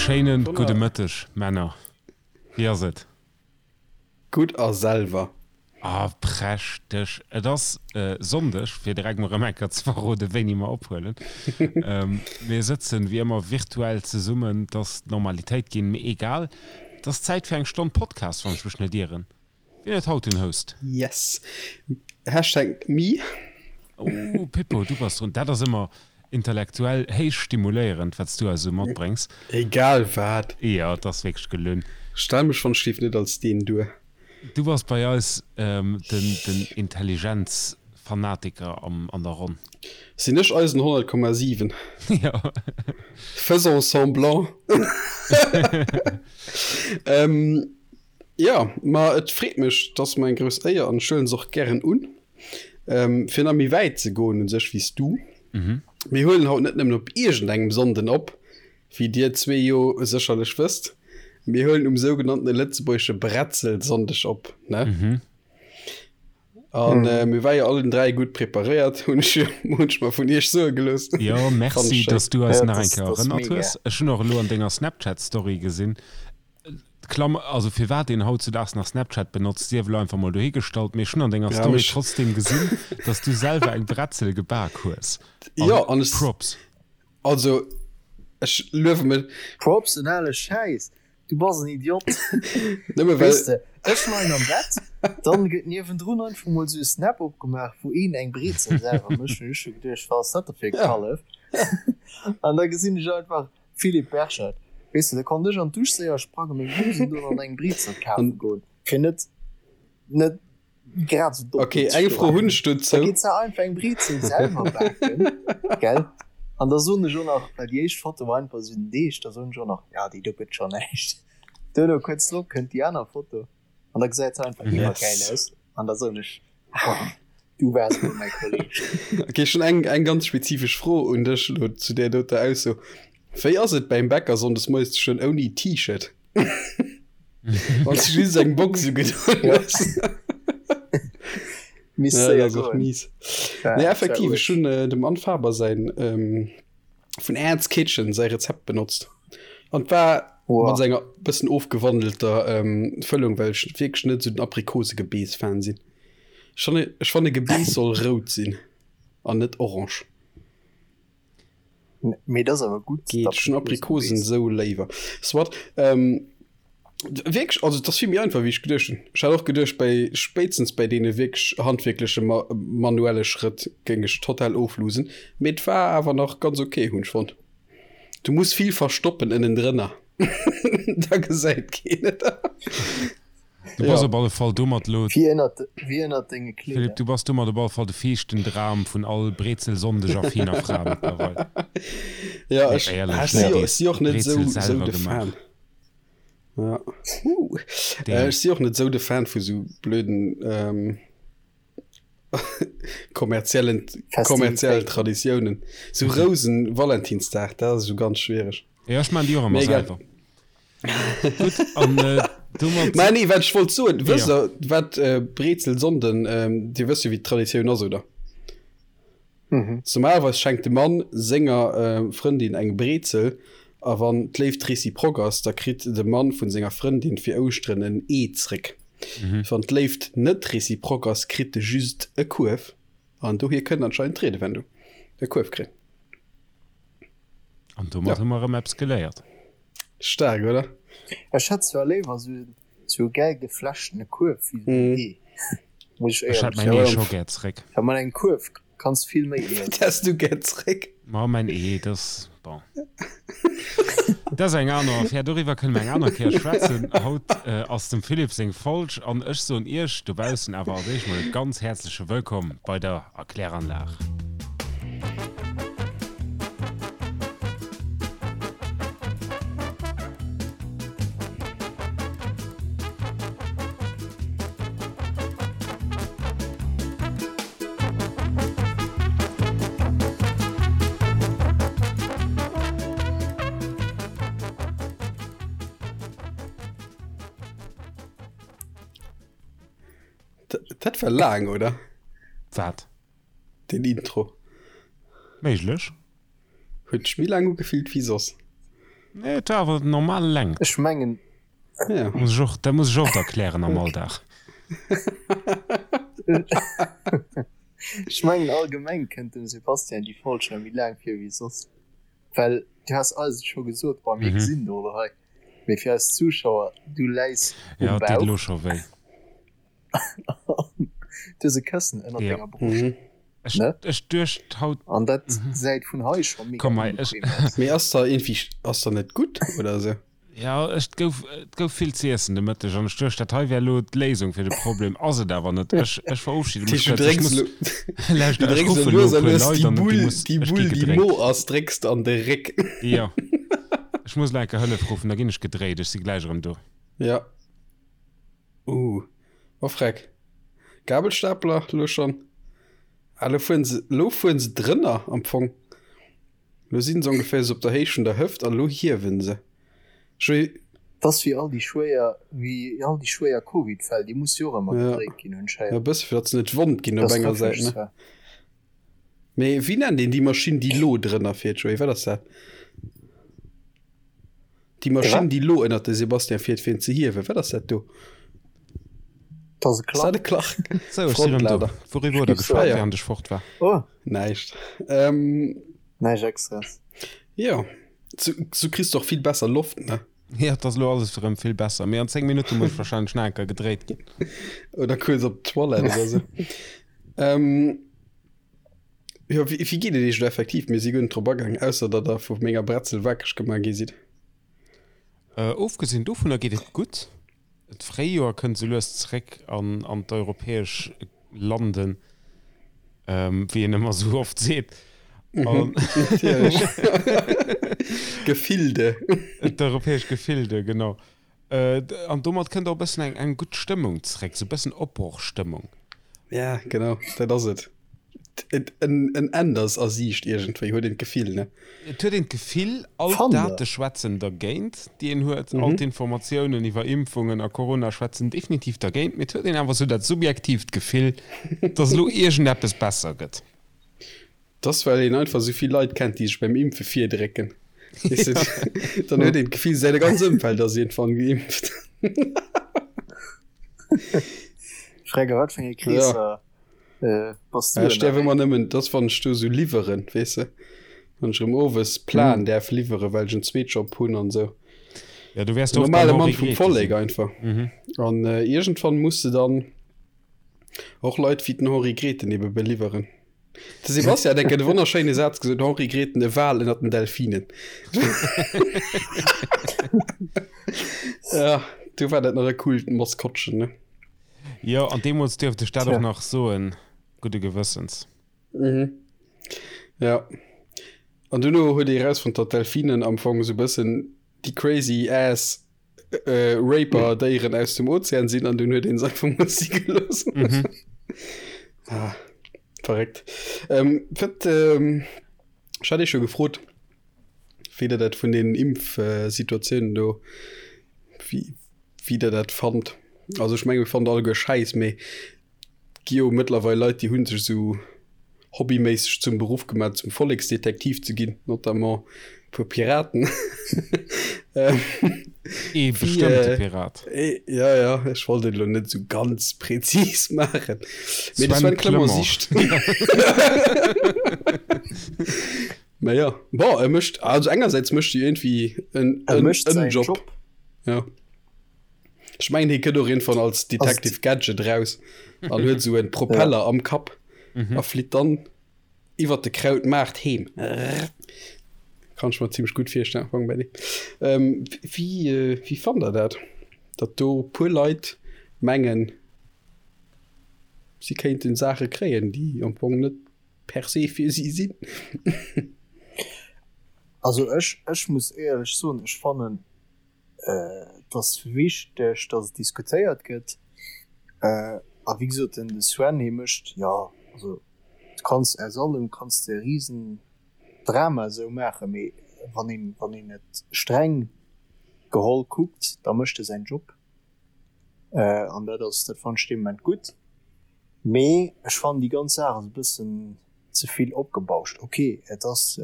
Schéinen gudde Mëtteg, Männer. Wéi ass et? Gutt a selwer? Ah, prächteg. Et ass Sonndeg, fir direkt mol erëm eng Kéier ze verroden, wéini mer ophuelen. Mir sëtzen wéi ëmmer virtuell zesummen, et ass d'Normalitéit ginn, mee egal. Et ass Zäit fir eng Stonn Podcast, wann ech mech net ieren. Wien huet haut den Host? Yes. Hashtag me. Oh, Pippo, du bass drun. Dat ass ëmmer intellektuell héich stimuléierend, wat s du eis esou matbréngs. Egal wat. Jo, et ass wierklech gelunn. Stell mech wann ech net als deen duer. Du bass bei eis den den Intelligenzfanatiker am an der Ronn. Sinn ech eisen 100,7? Jo. Faisons semblant. Jo, ma et freet mech, et ass mer eng grouss Éier an ech huelen se och gären un, fir nach méi wäit ze goen u sech wéi s du. Mir huelen haut net nëmmen op iergendengem Sonnden op, wéi dir zwee jo sécherlech wësst, mir huelen um sougenanntene lëtzebuergesche Bretzelsonndeg op, ne? An mir ware jo allen 3 gutt preparéiert, hunn ech hunn ech mer vun iech soe gelooss. Jo, merci, dass du eis nach eng Kéier erënnert hues. Ech hunn och elo an denger Snapchat-Story gesinn, Klammer, also firwat een hautzudaags nach Snapchat benotzt, sief elo einfach mol dohigestallt, mee ech hunn an denger Story trotzdem gesinn, dass du selwer eng Bretzel gebak hues. Jo, an ech. Props. Also, ech luewe mech. Props, en ale Schäiss! Du bass en Idiot! Nëmme well. Weess de, ech leien am Bett, dann gëtt niewendrun einfach mol sou e Snap opgemaach, wou een eng Brezel selwer mécht. Hunn ech scho geduecht, wat ass dat da fir e Kallef? An da gesinn ech einfach Philippe Berchet, Weess de, da konnt ech an d'Dusch séier sprangen, meng Hosen doen an eng Brezel kafe goen, fir net, net grad sou domm Ok, do ze eng Fro stoen. hunn ech Da dozou. geet se einfach eng Brezel selwer baken, gell? An da soen ech och nach, well déi éischt Foto war einfach sou den Deeg, da soen ech och nach, ja, déi do gëtt scho näischt. Duerno kuerz drop kënnt déi aner Foto an da gesäit se einfach iwwergäil Yes. aus an da soen ech, ah, du waars elo mäi Kolleg. Ok, ech hunn eng, eng ganz spezifesch Fro un dech elo zu där doter Ausso. Wéi ass et beim Bäcker sonndes moies ze stoen ouni T-Shirt? Wann s du just eng Box ugedoen hues. Misst Ja, séier dat ass och goen. mies. War, Nee, war effektiv, ech uerg. hunn äh, dem Anne Faber säin ähm, vun Anne's Kitchen säi Rezept benotzt. An war Wow. mat senger bëssen ofgewandelter ähm, Fëllung, well ech wierklech net esou den Aprikosegebeess-Fan sinn. Ech fanne, ech fanne Gebeess soll rout sinn an net orange. Mee dat ass awer gutt. Geet, ech hunn Aprikosen esou léiwer. Soit, ähm, wierklech, also et ass vill méi einfach wéi ech geduecht hunn. Ech hat och geduecht bei, spéitstens bei deene wierklech handwierkleche ma manuelle Schrëtt géing ech total oflosen, mee et war awer nach ganz ok hunn ech fonnt. Du muss vill verstoppen ënnendrënner, da gesäit keen et. Du bass op alle Fall domat lo. Wéi ënnert, wéi ënnert denge Philippe, Kleeder. du bass domat op alle Fall de fiichten Dram vun all Brezelsonndeg a Fina Fra mëttlerweil. Ja, Nee, ech, éierlech, ech si, nee, ech si och net Brezel sou, sou selwer de gemaach. Fan. Ja. Uh. Äh, Damn. ech si och net sou de Fan vu sou blöden ähm, kommerziellen, kommerziellen Festivitéiten. Traditiounen. Sou Rousen, Valentinsdag, dat ass sou ganz schwiereg. Ja, ech maan déi och ëmmer Mee egal. selwer. Gutt, an äh, domat. Mä nee, wat ech wollt soen, wësst Ja. der, wat äh, Brezelsonnden, ähm, Dir wësst jo, wéi d'Traditioun ass, oder? Mhm. Normalerweis schenkt de Mann senger äh, Frëndin eng Brezel, a wann d'Léift réciproque ass, da kritt de Mann vun senger Frëndin fir Ouschteren en Ee zréck. Mhm. Wann d'Léift net réciproque ass, kritt e just e Kuerf. An dohier kënnt anscheinend d'Riedewendung, e Kuerf kréien. An domat Ja. hu mer erëm eppes geléiert. Staark, oder? Ech hätt zwar léiwer sou sou e gäil geflechtene Kuerf wéi sou en Ee, muss ech Ech hätt éierlech mäin soen. Ee scho gär zréck. Well mat engem Kuerf kanns vill méi iessen. Wat häss du gär zréck? Ma mäin Ee, dat ass, bon, dat ass eng aner Affär. Doriwwer kënne mer eng aner Kéier schwätzen. Haut ass dem Philippe seng Folg an ech soen Iech dobaussen awer als éischt mol e ganz häerzleche Wëllkomm bei der Erkläranlag. Dat war laang, oder? Wat? Den Intro. Méiglech. Huet sech méi laang ugefillt wéi soss. Nee, et war awer normal Längt. Ech mengen. Ja. Muss ech och, dat muss ech oft erklären am Alldag. Ech mengen allgemeng kënnt dem Sebastian déi Fallschirm méi laang vir wéi soss. Well du has eis et scho gesot, bon mir gesinn do elo hei, mee fir eis Zuschauer, du läis um Ja, et deet Bauch elo scho wéi. an du hues e Këssen ënnert Ja. denger Broscht, Ech, ne? ech duecht haut, An dat gesäit vun hei scho mega komm hei, ech, onbequem aus. Mee ass da iergendwéi, ass da net gutt oder sou? Ja, ech, et gouf, et gouf vill z'iessen de Mëtteg an ech duecht, dat hei wär elo d'Léisung fir de Problem. Ass et awer net. Ech, ech verofschide mech Du kuerz. Ech drécks muss, elo, lauschter, du ech drécks ruffe elo elo lues e a puer lues Leit déi an déi Bull, muss, déi ech gi Bull, déi gedréckt. mo ass, drécks de an de Réck. Jo, ech muss elo eng Kéier Hëllef ruffen, da ginn ech gedréit. Ech si gläich erëm do. Ja. Uh, oh freck. Gabelstapler elo schonn. Ah, elo fueren se, elo fueren se drënner am Fong. Lo sinn se ongeféier sou op der Héicht vun der Hëft an lo hiewen se. Ech. Et ass wéi all déi schwéier, wéi all déi schwéier Covid-Fäll, déi musse jo och ëmmer Ja, gedréit ginn ja anscheinend. e bësse fir datt se net wond ginn op Dat ass enger trefflech Säit, ne? zwar. Mee wéi nennt een déi Maschinn, déi lo drënner fiert, Joé? Wat ass dat? Déi Maschinn, déi lo ënnert de Sébastien fiert, fir en ze hiewen, wat ass dat do? Dat ass e Ass dat Clark. e Clark? Sou, ech si rëm do. Frontlader. Wouriwwer huet der Gibso. Ah geschwat, ja. während ech fort war? Oh. Näischt. Ähm. Näischt Extraes. Jo, sou, sou kriss de och vill besser Loft, ne? Jo, et ass elo alles erëm vill besser, mee an 10 Minutte muss ech wahrscheinlech nach eng Kéier gedréit ginn. Oder kuerz op d'Toilette oder sou. Ähm. Jo, wéi, wéi geet et iech elo effektiv? Mir si guer net drop agaang, ausser datt der vu menger Bretzel wakereg gemaach gi sidd. Äh, ofgesinn dovunner geet et gutt. D'Fréijoer kënnt sou lues zeréck an, an d'europäesch Landen, ähm, wéi een ëmmer sou oft seet. An Natierlech. Gefilde. D'europäesch Gefilde, genau. An domat kënnt och e bëssen eng eng gutt Stëmmung zeréck, sou e bëssen Opbrochstëmmung. Ja, genau, dat ass et. Et en en Enn ass a Siicht iergendwéi, huet een d'Gefill, ne? Et huet een d'Gefill, all Fannt der? d'Date schwätzen dergéint, déi een huet, all d'Informatiounen iwwer Impfungen a Corona schwätzen definitiv dergéint, mee et huet een awer sou dat subjektiivt Gefill, dass elo iergendeppes besser gëtt. T'ass well een einfach sou vill Leit kennt déi sech beim Impfe virdrécken. Weess de, dann huet een d'Gefill säi ganz Ëmfeld ass iergendwann geimpft. Fräger wat fir enge Kreesser ja. bass du Ech däerf ëmmer nëmmen, t'ass wann ech do sou liwweren, weess de, wann ech erëm owes Plan däerf liwweren, well ech en Zweetjob hunn an sou. Ja, du wäers oft Normale beim Mann Henri vum Grethe Vollek sinn. einfach. An iergendwann muss de dann och Leit wéi den Henri Grethen ebe beliwweren. De Sebastian hat enke de wonnerschéine Saz gesot, Henri Grethen, e Wal ënnert den Delfinen. Ja, du war dat nach e coolt Maskottchen, ne? Jo, an deemools duerft ech dat Tja. och nach soen, gudde Gewëssens. Mhm. Ja. An duerno huet ee erausfonnt, datt Delfinen am Fong esou e bëssen déi crazy ass Raper Déieren aus dem Ozean sinn an dunn huet een se einfach mol si gelooss. Mhm. Ah, verréckt. Ähm, wat, ähm, ech hat Iech jo gefrot, wéi der dat vun den Impfsituatiounen do, wéi, wéi der dat fannt. Also ech menge mir fannen alleguer schäiss, mee Gi jo mëttlerweil Leit, déi hu sech esou hobbyméisseg zum Beruff gemaach, zum Volleksdetektiv ze ginn, notamment e puer Piraten. Ee bestëmmte Pirat. Ja, ja, ech wollt et elo net esou ganz präzis maachen. Mee de Sven Clement sicht. Mä ja, bon, e mécht, also engersäits mécht e iergendwéi en Job. Job. Ja. Ech mengen hie kënnt och iergendwann als Detective Gadget raus an huet esou en Propeller am Kapp a flitt dann iwwert de Krautmaart heem. Kann ech mer zimmlech gutt virstellen am Fong bei deem. Ähm, wéi, wéi fannt der dat, datt do puer Leit mengen, si kéinten Saache kréien, déi am Fong net per se fir si sinn? Also ech, ech muss éierlech soen, ech fannen, Et ass wichteg, datt et diskutéiert gëtt. A wéi gesot, den de Sven, hie mécht, jo, also du kanns aus allem kanns de e Risendrama esou maachen, mee wann een, wann een et streng geholl kuckt, da mécht e säin Job. An dat ass, dat fannen ech dee Moment gutt. Mee ech fannen déi ganz Saach ass e bëssen ze vill opgebauscht. Ok, et ass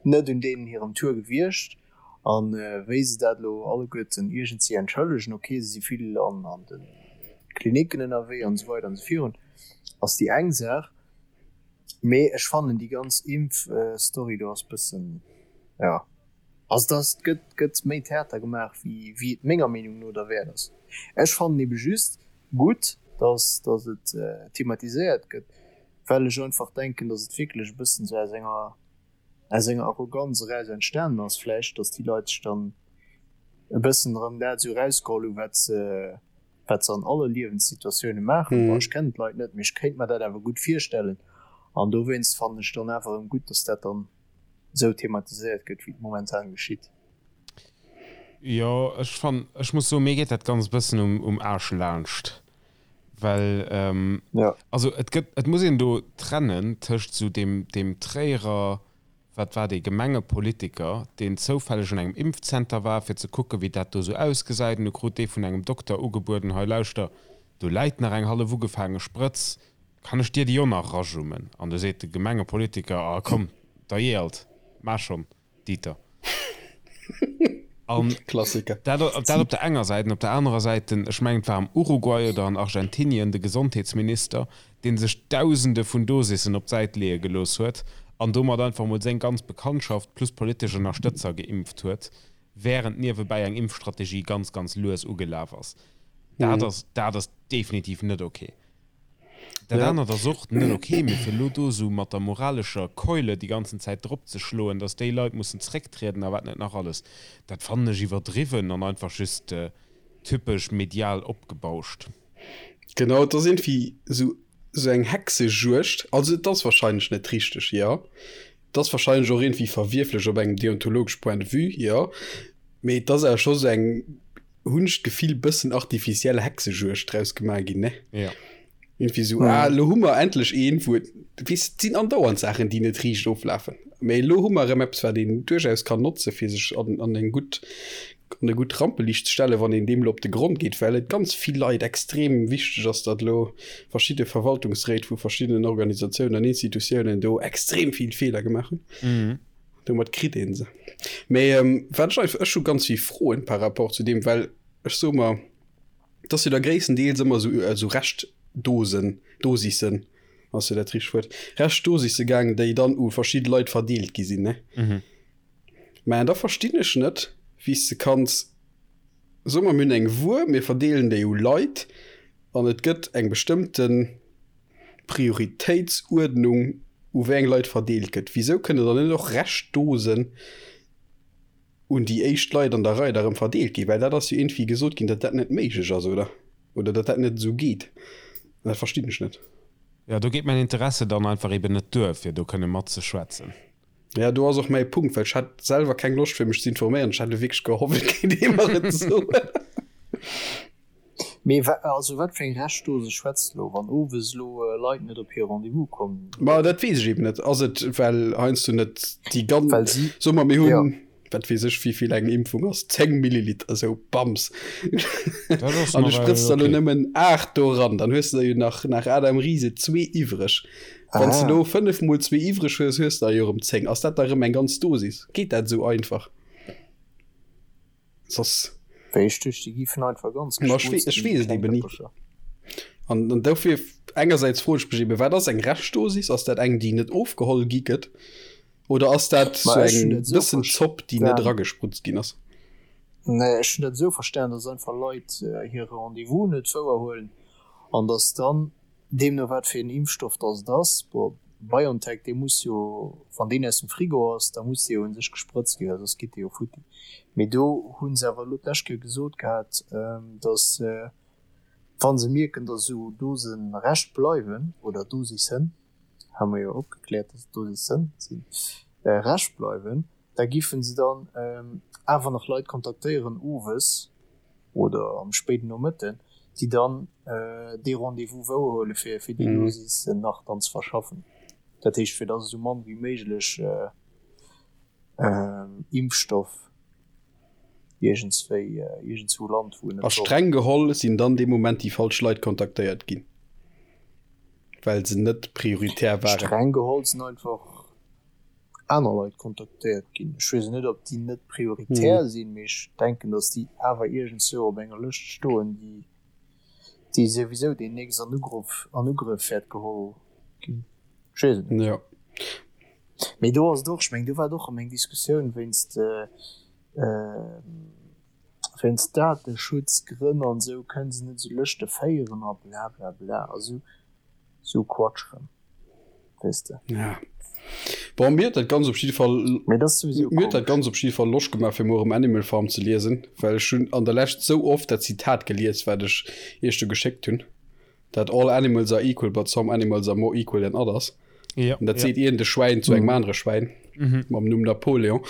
net un deenen hirem Tour gewiescht. An wéi se dat elo alleguerten iergendwéi entschëllegen, ok, se si vill an an de Klinicken ënnerwee an esou weider an esou virun, ass déi eng Saach. Mee ech fannen déi ganz Impf-Story do ass bëssen, jo, also et ass, et gëtt, gëtt méi Theater gemaach wéi wéi et menger Meenung no derwäert ass. Ech fannen ebe just gutt, datt datt et thematiséiert gëtt, well ech einfach denken, datt et wierklech e bëssen esou aus enger aus enger Arroganz eraus entstanen ass vläicht, datt déi Leit sech dann e bëssen erëm dat esou erausgeholl hunn, wat se, wat se an alle Liewenssituatioune maachen. Bon, ech kennen d'Leit net, mee ech kéint mer dat awer gutt virstellen. An dowéinst fannen ech dann awer erëm gutt, datt dat dann esou thematiséiert gëtt, wéi et momentan geschitt. Jo, ech fann, ech muss soen, mir geet dat Ganzt e bëssen um, um Aarsch laanscht. Well, ähm, ja. also et gëtt, et muss een do trennen tëscht esou deem, deem Tréierer, wat war dee, Gemengepolitiker, deen zoufälleg an engem Impfzenter war, fir ze kucken, wéi dat do esou ausgesäit, an du krut dee vun engem Dokter ugebueden, hei lauschter, do läit nach eng hallef ugefaange Sprëtz, kann ech dir déi och nach erajummen? An du seet de Gemengepolitiker, ah komm, da jee alt, maach schonn. Dieter. An Klassiker. Dat, dat op der enger Säit. An op der anerer Säit den, ech mengen et war am Uruguay oder an Argentinien, de Gesondheetsminister, dee sech Dausende vun Dosissen op d'Säit leeë gelooss huet an domat einfach emol seng ganz Bekanntschaft plus politesch Ënnerstëtzer geimpft huet, wärend niewebäi eng Impfstrategie ganz, ganz lues ugelaf ass. Dat ass, dat ass definitiv net ok. Dat Ja. anert ass och net ok, mee fir elo do esou mat der moralescher Keule déi ganzen Zäit drop ze schloen, datt déi Leit mussen zrécktrieden a wat net nach alles, dat fannen ech iwwerdriwwen an einfach just typesch medial opgebauscht. Genau, et ass iergendwéi esou esou eng Hexejuegd. Also et ass wahrscheinlech net richteg, jo. Et ass wahrscheinlech och iergendwéi verwierflech op engem deontologesch Point de vue, jo. Mee et ass awer scho sou eng hunn ech d'Gefill, bëssen artificiell Hexejuegd draus gemaach ginn, ne? Ja. Irgendwie so, ah, lo hu mer endlech een, wou et, weess, et sinn andauernd Saachen, déi net riicht oflafen. Mee elo hu mer erëm eppes, wat een duerchaus kann notze fir sech an, an eng gutt, an e gutt Rampeliicht ze stellen, wann een deem elo op de Grond geet, well et ganz vill Leit extrem wichteg ass, datt elo verschidde Verwaltungsréit vu verschiddenen Organisatiounen an Institutiounen do extrem vill Feeler gemaach hunn. Mhm. Domat kritt een se. Mee ähm, wat ech einfach, ech hu ganz vill Froen par rapport zu deem, well ech soe mer, et ass jo da gréisstendeels ëmmer esou, esou Reschtdosen, Dosissen, ass jo dat richtegt Wuert, Reschtdosisse gaangen, déi dann u verschidde Leit verdeelt gi sinn, ne? Mhm. Mä da verstinn ech net, wéi s de kanns, soe mer, mir hunn eng Wuer, mir verdeelen déi u Leit an et gëtt eng bestëmmten Prioritéitsuerdnung u wéi eng Leit verdeelt gëtt. Wisou kënne dann net och Reschtdosen un déi éischt Leit an der Rei da rëm verdeelt ginn? Well dat ass jo iergendwéi gesot ginn, datt dat net méiglech ass, oder? Oder datt dat net esou geet. An dat verstinn ech net. Jo, do geet mäin Interesse dann einfach eben net duer, fir do kënne matzeschwätzen. Ja, do ass och mäi Punkt, well ech hat selwer keng Loscht fir mech ze informéieren. Ech hat elo wierklech gehofft, et kéint ee mer et soen. Mee wa, also wat fir eng Reschtdose schwätzt elo, wann owes elo Leit net op hir Rendez-vous kommen? Ma dat weess ech eben net. Ass et well heiansdo net déi ganz, Well si, soe mer mir ja. hunn, wat weess ech wéivill eng Impfung ass, 10 Milliliter esou, bams, Dat ass an du nawell sprëtz der elo okay. nëmmen 8 do eran, dann hues de der jo nach nach Adam Riese zwee iwwreg. Wann s de Ah. elo 5 mol zwee iwwreg hues, hues de der jo erëm 10. Ass dat da erëm eng ganz Dosis? Geet dat esou einfach? Soss. Wéi ech duecht, déi giffen einfach ganz Ma ech gesprutzt ech ginn, weess déi et kleng eben ni. Dëppercher. An, an dofir engersäits froen ech mech eben, wat ass eng Reschtdosis? Ass dat eng, déi net ofgeholl gi gëtt? Oder ass dat Ma sou ech hunn eng dat esou bëssen Zopp, déi net verstan. eragesprutzt ginn ass? Nee, ech hunn dat esou verstan, dass einfach Leit hire Rendez-vous net wouerhuelen an dass dann Deemno wat fir een Impfstoff dass et ass, bon BioNTech dee muss jo, wann deen aus dem Frigo ass, da muss dee jo un sech gesprëtzt ginn, well soss geet dee jo futti. Mee do hu se awer elo d'lescht Kéier gesot gehat, dass wa se mierken, dass esou Dose Rescht bleiwen, oder Dosissen, hu mer jo opgekläert, dass et Dosissen sinn, Rescht bleiwen, da giffen se dann awer nach Leit kontaktéieren owes oder am spéiden Nomëtten, déi dann dee Rendez-vous wouerhuele fir fir déi Dosis nach dann ze verschaffen. Dat heescht, fir datt esou mann wéi méiglech Impfstoff iergendswéi iergendswou lant, wou en A net soll. streng geholl sinn dann dee Moment déi falsch Leit kontaktéiert ginn, well se net prioritär waren. Streng geholl sinn einfach. Aner Leit kontaktéiert ginn. Ech weess net, ob déi net prioritär sinn, mee ech denken, datt déi awer iergendzwou op enger Lëscht stoen, déi, déi souwisou deemnächst an Ugrëff, an Ugrëff wäert geholl ginn. Ech weess et net. Jo. Mee do ass et och, ech mengen, do war et och erëm eng Diskussioun wéinst, wéinst Dateschutzgrënn an esou kënne se net esou Lëschte féieren a blablabla a sou, sou Quatsch rëm. Weess de. Ja. Bon, mir huet dat ganz op jidde Fall Mee dat ass souwisou mir huet dat komesch. ganz op jidde Fall Loscht gemaach fir muer erëm Animal Farm ze liesen, well ech hunn an der Lescht sou oft dat Zitat gelies, wat ech iech do geschéckt hunn, dat All animals are equal, but some animals are more equal than others. Ja, An dat ja. seet iergend e Schwäin zu engem anere Schwäin mam Numm Napoleon.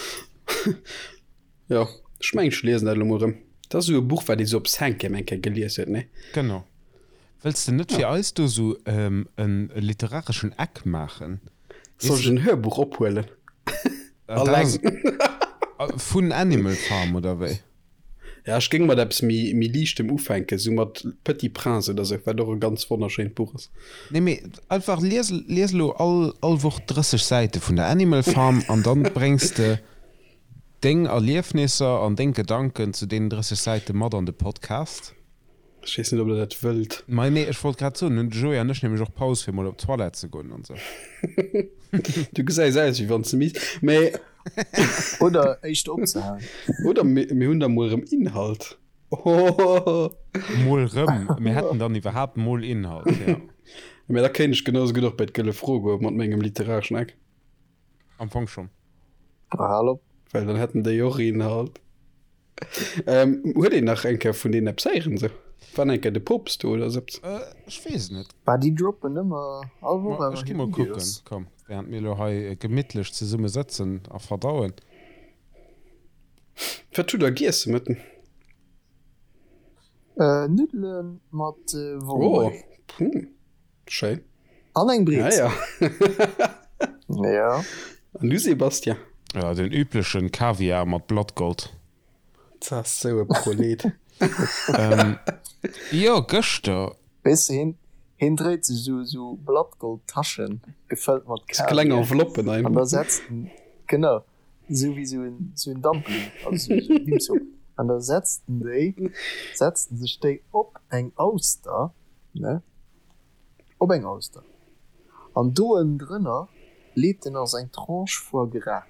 Jo, ech mengen ech liesen dat elo mol erëm. Dat ass esou e Buch, wat ee sou op Cinquième eng Kéier gelies huet, nee? Genau. Wëlls de net fir eis do sou e literareschen Eck maachen? Soll ech en Hörbuch ophuelen? Alleng. Vun Animal Farm oder wéi? Ja, ech géing mat eppes méi, méi Liichtem ufänken, sou mat Petit Prince oder sou, wat och e ganz wonnerschéint Buch ass. Nee, mee einfach lies, lies elo all, all Woch 30 Säite vun der Animal Farm an dann bréngs de deng Erliefnisser an deng Gedanken zu deenen 30 Säite mat an de Podcast. Ech weess net, ob der dat wëllt. Mei nee, ech wollt grad soen, hunn de Joé an ech nämlech och Paus fir mol op d'Toilette ze goen an sou. Du gesäis aus wéi wann s de misst, mee. Oder éischter opzehalen. Oder mir hunn da mol erëm Inhalt. Ohohoho. Mol rëm, mir hätten dann iwwerhaapt mol Inhalt, jo. Mee da kéint ech genau sou gutt och bei d'Gëlle Fro goe mat mengem literareschen Eck. Am Fong schonn. Hal op. Well dann hätten déi och Inhalt. Ähm, huet een nach eng Kéier vun deenen eppes héieren sou? War eng Kéier de Poopst do oder sou eppes? Äh, ech weess et net. Bah, déi droppen ëmmer all Woch Ma awer ech gi hir mol kucken, Videos. komm, während mir elo hei gemittlech zesumme sëtzen a verdauen. Wat hutt der giess de Mëtten? Äh, Nuddele mat Oh, Wollmais. hm, schéin. An eng Brezel. Ah, ja. ja. An du Sebastian? Ja, den üblechen Kaviar mat Blattgold. Dat ass sou e Prolet. ähm, jo, gëschter. Weess de, hien, hien dréit sech sou, sou Blattgoldtaschen, gefëllt mat Kaviar. Kleng Enveloppen einfach. An da setzt en, genau, sou wéi sou en, sou en Dumpling, also sou, sou en Dim Sum. An da setzt en déi, setzt en sech déi op eng Auster, ne? Op eng Auster. An do ënnendrënner leet en ass eng Tranche Foie Gras,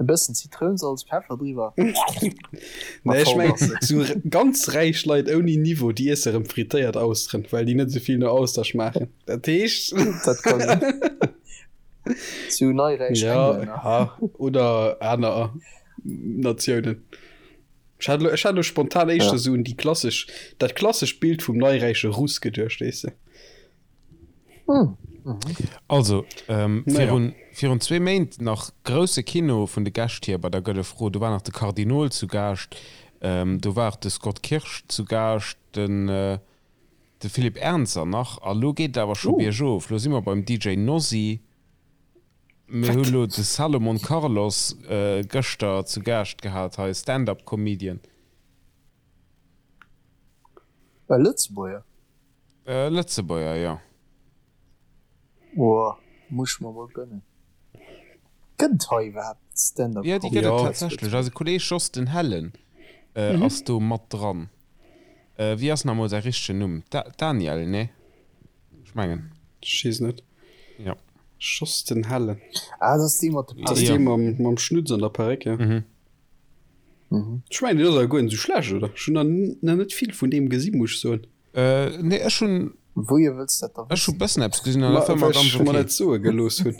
e bëssen Zitrounsalz, Peffer driwwer a Nee, ech voll mengen, ass se. sou ganz räich Leit ouni Niveau, déi iesse rëm frittéiert Austeren, well déi net sou vill no Auster schmaachen. Dat heescht. Dat ka sinn. Sou neiräich Ja, Englänner. ja, oder aner Natiounen. Ech hat elo, ech hat elo spontan éischter ja. sou un déi klassesch, dat klassescht Bild vum neiräiche Russ geduecht, weess de. Hm. Mhm. Also, ähm, virun, ja. virun zwee Méint nach grousse Kino vun de Gäscht hier bei der Gëlle Fro. Do war nach de Kardinol zu Gaascht, ähm, do war de Scott Kirsch zu Gaascht, den, äh, de Philippe Ernzer nach. A lo geet et awer scho uh. biergof. Lo si mer beim DJ Nosy. Mir hu lo de Salomon Carlos gëschter zu Gaascht gehat hei, Stand-up Comedian. E Lëtzebuerger? E Lëtzebuerger, jo. Woah, muss ech mer mol gënnen. Gëtt et hei iwwerhaapt Stand-up Jo, déi Comedy gëtt et zu tatsächlech. Lëtzebuerg? Eise Kolleeg Jos den Hellen ass do mat dran. Wéi ass nach emol säi richtegen Numm? Daniel, nee? Ech mengen. Ech weess net. Ja. Schoss den Hellen. Ah, dat ass dee mat de Dat ass dee mam, mam Schnutz an der Perréck, ja. Mhm. Mhm. Ech mengen, deen ass awer guer net esou schlecht, oder? Ech hunn nach net vill vun deem gesi, muss ech soen. Äh, nee, ech hunn. Wouhier wëlls dat da Ech hu wëssen? bëssen eppes gesinn an dat war Ma, mer well ganz ech mer okay. dat soe gelooss hunn.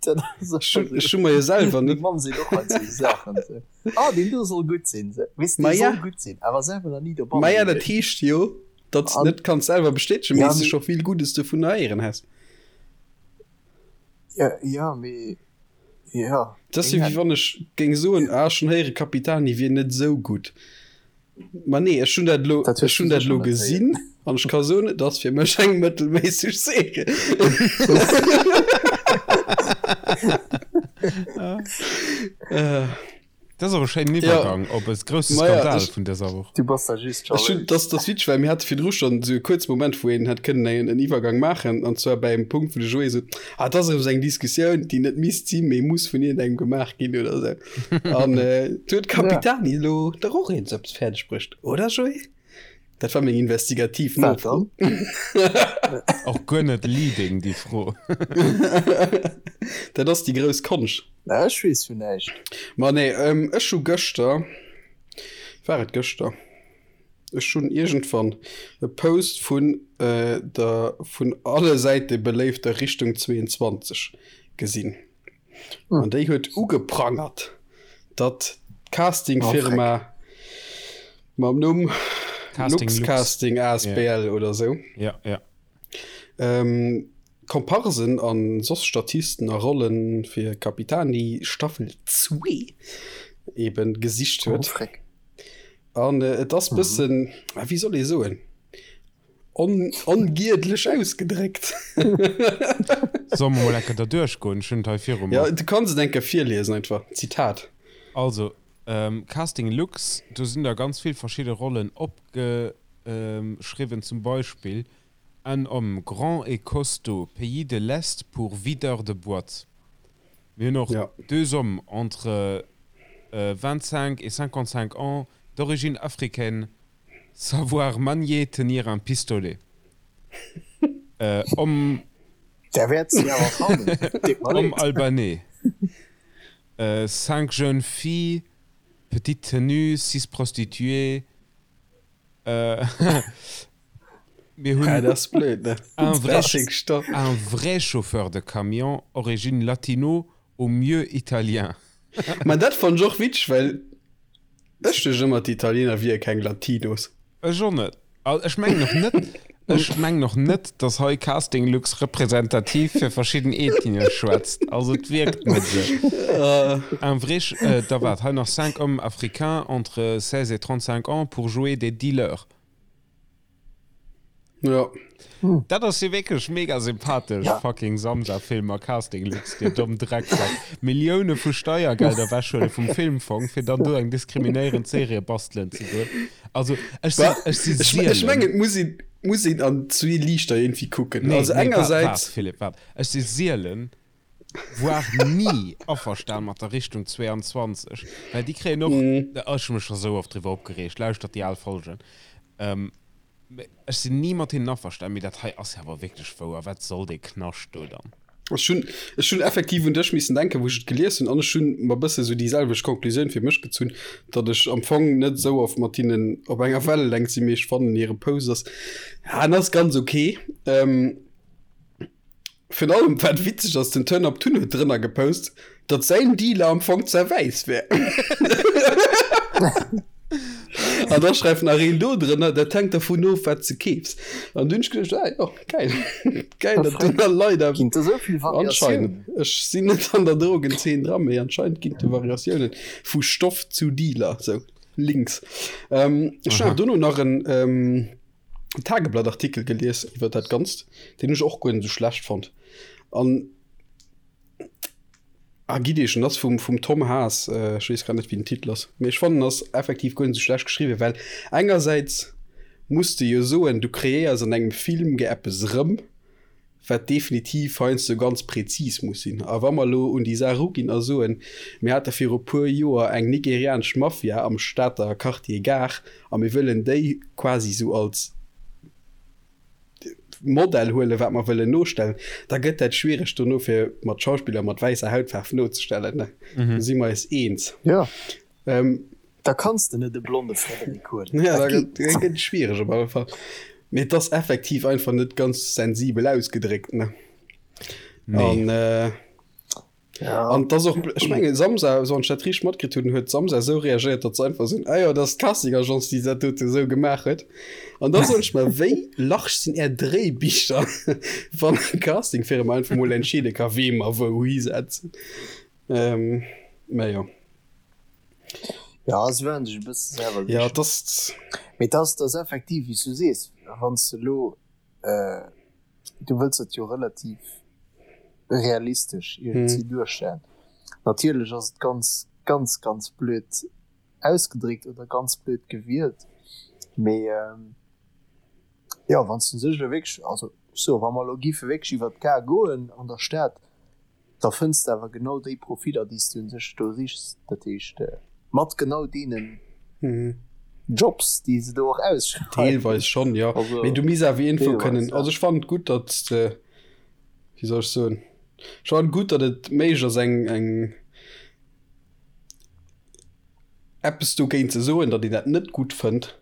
Dat ass Ech hunn, ech hu mer jo selwer Meng net. Mamm seet och heiansdo esou Saachen, esou, Ah, deen do soll gutt sinn, esou. Weess de, Ma dee ja. soll gutt sinn, awer selwer nach ni dobanne Ma ja, dat gewiescht. heescht jo, Datt s An net kanns selwer bestätegen, ja, mee s de mee scho vill Guddes dovun héieren häss. Ja, ja, mee ja, Dat ass keng jo wéi Ahnung. wann ech géing soen, ah ech hunn héiere Capitani wier net esou gutt. Ma nee, ech hunn dat elo, Dat hues ech du hunn dat sécher elo net héieren. gesinn an ech ka soen, et ass fir mech eng mëttelméisseg Serie. Dat ass awer e schéinen Iwwergang op e grousse Skandal vun dëser Woch. Du bass da just Ech hunn, jalous. dat ass witzeg, well mir hate virdru schonn esou e kuerze Moment, wou een hätt kënnen en, en Iwwergang maachen, an zwar bei engem Punkt, wou de Joé sot, Ah, dat ass erëm esou eng Diskussioun, déi net misst sinn, mee muss vun iergendengem gemaach ginn oder esou. An du huet d'Capitani elo dach och eens eppes fäerdeg bruecht, oder Joé? Dat war meng investigativ Nofro. Och guer net leading, déi Fro. Dat ass déi grouss Konscht. Na, ech weess vun näischt. Ma nee, ech hu gëschter, war et gëschter? Ech hunn iergendwann e Post vun der vun alle Säite beléifter Richtung 22 gesinn. An déi huet ugeprangert, datt d'Castingfirma mam Numm Luxcasting asbl oder sou Komparsen a soss Statisten a Rolle fir Capitani Staffel 2 eben gesicht huet. An et ass bëssen, wéi soll ee soen? On, ongiedlech ausgedréckt. Solle mer mol enke derduerch goen? Ech hunn et hei viru mer. Ja, du kanns et enke virliesen einfach. Zitat. Also, Casting Lux, do sinn der ganz vill verschidde Rollen opgeschriwwen, zum Beispill, Un homme grand et costaud, pays de l'Est pour videur de boîte. Mir hunn och deux hommes entre 25 et 55 ans, d'origine africaine, Savoir manier, tenir un pistolet. Homme. Der wäert se awer fannen. Deet mer Homme leed. albanais. Cinq jeunes filles, petite tenue, six prostituées. Mir hunn Ah, dat ass blöd, ne? un vrai, Dat ass stopp. un vrai chauffeur de camion, origine latino, au mieux italien. Ma dat fannt ech och witzeg, well Ech duecht ëmmer d'Italiener wier keng Latinos. Ech och net. Also ech mengen och net, ech mengen och net, dass hei Casting Lux representativ fir verschidden Ethnien schwätzt. Also et wierkt net esou. Un vrai, da waart, hei nach cinq hommes africains entre 16 et 35 ans pour jouer des dealers. Ja. Hm. Dat ass jo wierklech mega sympathesch. Ja. Fucking Samsa-Film a Casting Lux, dir domm Drecksack. Millioune vu Steiergelder wechhuele vum Filmfong, fir dann do eng diskriminéierend Serie bastelen ze goen. Also, ech sinn, ech si Ech, ech mengen, et muss een, muss een an zwee Liichter irgendwie kucken. Nee, also nee, engersäits. Waart, Philippe, waart. Ech si sielen voire ni averstan mat der Richtung 22, well déi kréien och, ech hu mech scho sou oft driwwer opgereegt, lauschtert déi al Folgen, ech sinn ni mat hinnen averstan, mee dat hei ass jo awer wierklech wouer, wat soll dee Knascht do dann? Ech hunn, ech hunn effektiv un dech missen denken, wou ech et gelies hunn, an ech hunn mer bësse sou déi selwecht Conclusioun fir mech gezunn, datt ech am Fong net esou oft mat hinnen op enger Wellelängt sinn, mee ech fannen hire Post ass, ja, en ass ganz ok. Virun allem wat witzeg ass, den Turn Up Tun huet drënner gepost, datt säin Dealer am Fong ze wäiss wär. An da schreift nach een do drënner, dat hänkt dervun of, wat s de keefs. An du hunn ech geduecht, ah jo, geil, geil, datt do nach Leit Ginn et esou vill Variatiounen? Anscheinend. Ech sinn net an der Drogenzeen dran, mee anscheinend ginn et do Variatiounen vu Stoff zu Dealer, sou links. Ech hunn awer dono nach en. Tageblatt-Artikel gelies iwwer dat Ganzt, deen ech och guer net esou schlecht fonnt. An ah, gitt Iech, en ass vum, vum Tom Haas, äh, ech weess grad net, wéi den Titel ass, mee ech fannen, en ass effektiv guer net esou schlecht geschriwwen, well engersäits muss de jo soen, du kreéiers an engem Film ge eppes erëm, wat definitiv heiansdo ganz prezis muss sinn. A wa mer elo un déi Saach eruginn a soen, mir hate viru puer Joer eng nigerianesch Mafia am Stater Quartier Gare a mir wëllen déi quasi esou als Modell huelen, wat mer wëllen nostellen, da gëtt dat schwiereg dono fir mat Schauspiller mat wäisser Hautfaarf nozestellen. Do si mer eis eens. Jo. Da kanns de net e blonde Frederik huelen. Ja, da gëtt et schwiereg op alle Fall. Mee et ass effektiv einfach net ganz sensibel ausgedréckt, ne? Nee. An, äh, ja. an das och, ech mengen, Samsa, wann ech dat richteg matkritt hunn, huet Samsa esou reagéiert, datt se einfach sinn, ah jo, dat ass d'Casting-Agence, déi dat dote esou gemaach huet. An da soen ech mer, wéi large sinn är Dréibicher, wann eng Casting-Firma einfach mol entscheede ka, wee mer wou hisetzen. Ähm, mä jo. Ja, se waren sech e bësse selwer Ja, sicher. das Mee dass dass effektiv, wéi s du sees, wann s de elo, du wëlls dat jo relativ realistesch iergendwéi duerstellen. Natierlech ass et ganz. Ganz, ganz blöd ausgedréckt oder ganz blöd gewielt. Mee jo, wann s du sech elo wierklech, also ech soe wa mer elo giffe wierklech iwwer d'Gare goen an der Stad, da fënns de awer genau déi Profiller, déi s du un sech do sichs. Dat heescht mat genau deenen Jobs, déi se do och ausschreiwen. Deelweis schonn, jo. Mee du misst awer iergendwou kënnen, also ech fannen et gutt, datt s de, wéi soll ech soen, ech fannen et gutt, datt et méiglech ass eng, eng, eppes dogéint ze soen, datt een dat net gutt fënnt.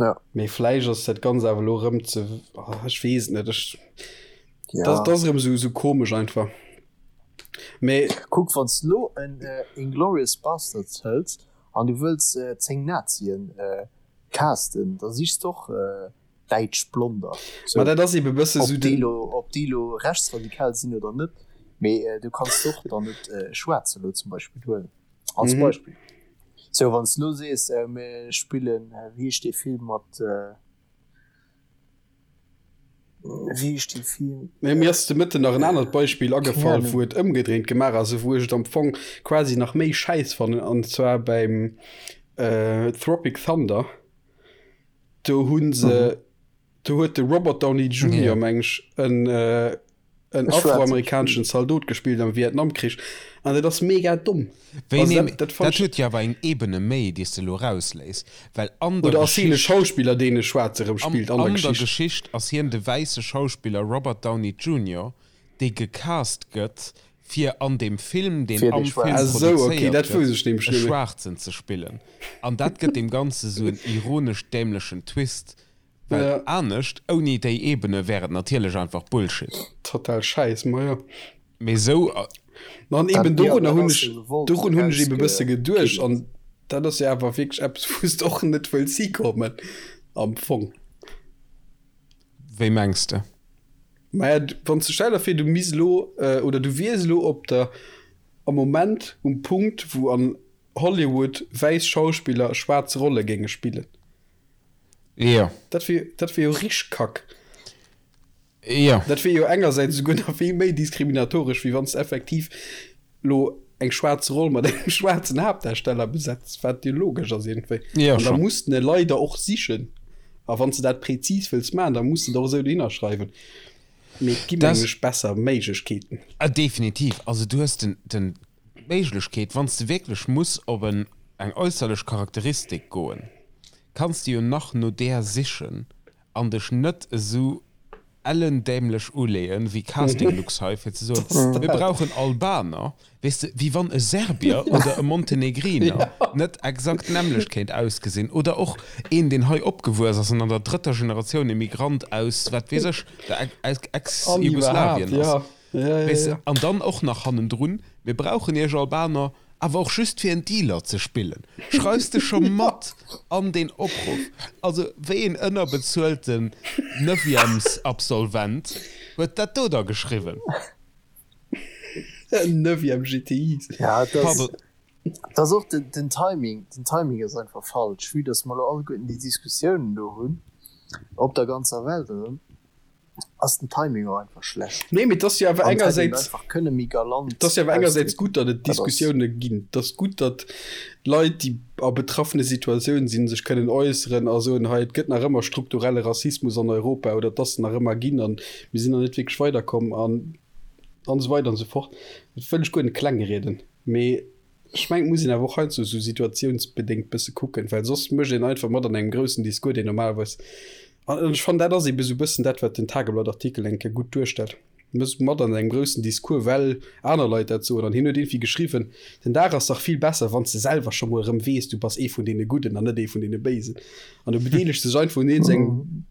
Ja. Mee vläicht ass dat Ganzt awer elo erëm ze, oh, ech weess et net. Ech, ja. dat, dat ass erëm esou, esou komesch einfach. Mee. Kuck, wann s de elo en äh, Inglourious Basterds hëls an du wëlls äh, 10 Nazien äh, casten, da sichs de och äh, däitsch Blonder. So, Ma dat ass ebe bësse sou den. Ob déi elo rechtsradikal sinn oder net, mee du kanns och dann net e Schwaarze elo zum Beispill huelen, als Beispill. Sou, wann s de elo sees, mir spillen, wéi heescht dee Film mat, wéi heescht dee Film? Mee mir ass de Mëtten nach en anert Beispill agefall, wou et ëmgedréint gemaach ass, wou ech et am Fong quasi nach méi schäiss fannen, an zwar beim Tropic Thunder. Do hunn se, do huet de Robert Downey Junior, meng ech, en en afroamerikaneschen Zaldot gespillt am Vietnamkrich an dat ass mega domm. Wéi also dat, dat, dat huet jo awer eng Ebene méi, déi s de elo erausléiss, well an der Oder ass hien e Schauspiller, deen e Schwaarze rëm spillt an der Geschicht? An der Geschicht ass hien de wäisse Schauspiller Robert Downey Junior, dee gecast gëtt, fir an deem Film, deen am Film produzéiert gëtt, e Schwaarzen ze spillen. An dat gëtt deem Ganze sou en ironesch dämlechen Twist, well anescht, ouni déi Ebene, wär et natierlech einfach Bullshit. Total Schäiss, ma jo. Mee sou. Ma an eben dorunner hunn ech, dorun hunn ech eben e bësse geduecht. An dat ass jo awer wierklech eppes, wou s de och net wëlls hikommen am Fong. Wéi mengs de? Maja, wann s de, stell der vir, du misst elo, oder du wiers elo op der, am Moment um Punkt, wou an Hollywood wäiss Schauspiller schwaarz Rolle géinge spillen. Jo. Dat wier, dat wier jo richteg Kack. Jo. Dat wier jo engersäits esouguer nach vill méi diskriminatoresch, wéi wann s de effektiv lo eng schwaarz Roll mat engem schwaarzen Haaptdarsteller besetz, wat jo logesch ass iergendwéi. Jo, An da schon. muss den e leider och sichen. A wann s de dat präzis wëlls maachen, da muss de et och esou dohinner schreiwen. Mee et gi Das- mengen ech besser Méiglechkeeten. Ah, definitiv. Also du hues den, den, d'Méiglechkeet, wann s de wierklech muss op en, eng äusserlech Charakteristik goen, kanns de jo nach no där sichen an dech net esou ellendämlech uleeën wéi Castinglux hei fir ze soen, mir brauchen Albaner, weess de, wéi wann e Serbier oder e Montenegriner net exakt d'nämmlecht kéint ausgesinn oder och een deen hei opgewuess ass an an der drëtter Generatioun Immigrant aus, wat weess ech, der Ex-Jugoslawien ass. Weess de, an dann och nach hannendrun, mir brauchen iech Albaner awer och just fir en Dealer ze spillen. Schreifs de scho mat an deen Opruff? Also wéi een ënnerbezuelten Neuvièmesabsolvent huet dat do da geschriwwen? Neuvième GTIs. Ja, et ass, Pardon. et ass och den, den Timing, den Timing ass einfach falsch, vue dass mer elo alleguerten déi Diskussiounen do hunn op der ganzer Welt erëm. ass den Timing och einfach schlecht. Nee, mee et ass jo awer An et hätt een engersäits, einfach kënne méi galant et ass jo awer engersäits ausdrécken. gutt, datt et Dat ass. Diskussioune ginn. Et ass gutt, datt Leit, déi a betraffene Situatiounen sinn, sech kënnen äusseren a soen, hei, et gëtt nach ëmmer strukturelle Rassismus an Europa oder et ass en nach ëmmer ginn an mir sinn nach net wierklech weiderkomm an an esou weider an esou fort. Dat wëll ech guer net klengrieden, mee Ech mengen, et muss een awer och heiansdo esou situatiounsbedéngt bësse kucken, well soss mécht een einfach mat an engem groussen Discours, deen normalerweis, an ech fannen, dat ass eebe esou bëssen dat, wat den Tageblatt-Artikel eng Kéier gutt duerstellt, mécht mat an engem groussen Discours, well aner Leit dat soen. An hien huet iergendwéi geschriwwen, Den Dag ass dach vill besser, wann s de selwer scho mol erëm weess, du bass ee vun deene Gudden an net ee vun deene Béisen. An du bedeelegst dech einfach un iergendengem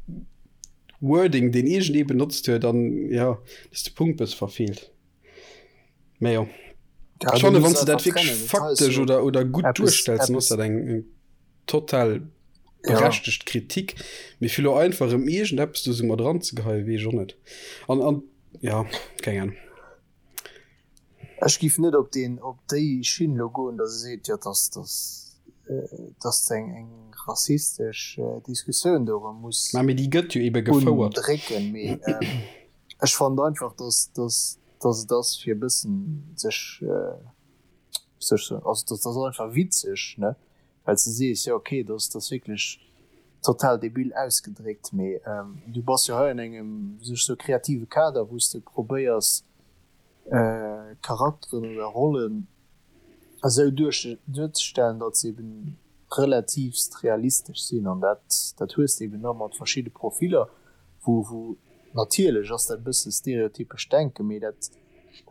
Wording, deen iergendee benotzt huet, an jo, dass de Punkt bësse verfeelt. Mä jo. Ja, Ech fanne du wann muss se dat einfach wierklech trennen. Dat heist faktesch jo oder, oder gutt eppes, duerstells, dann ass eppes, dat eng, eng total ja. berechtegt Kritik. Mee fir lo einfach erëm iergendeppes do sou mat eranzegeheien, weess ech och net. An, an ja, keng Ahnung. Ech giff net op deen, op déi Schinn lo goen, datt e seet, jo, datt, datt, datt eng, eng rassistesch Diskussioun do erëm muss Mä mee déi gëtt jo ebe gefouert. undrécken. Mee ech fand einfach, datt, datt, datt et ass fir e bëssen sech. Soll ech soen, also dat ass einfach witzeg, ne, well s de sees, jo okay, dat ass, dat ass wierklech total debil ausgedréckt, mee du bass jo hei an engem, wéi soll ech soen, kreative Kader, wou s de probéiers Charakteren oder Rollen esou duerzestellen, datt se eben relativst realistesch sinn an dat, dat hues de eben da mat verschidde Profiller, wou, wou natierlech ass dat e bësse stereotypesch Denken, mee dat,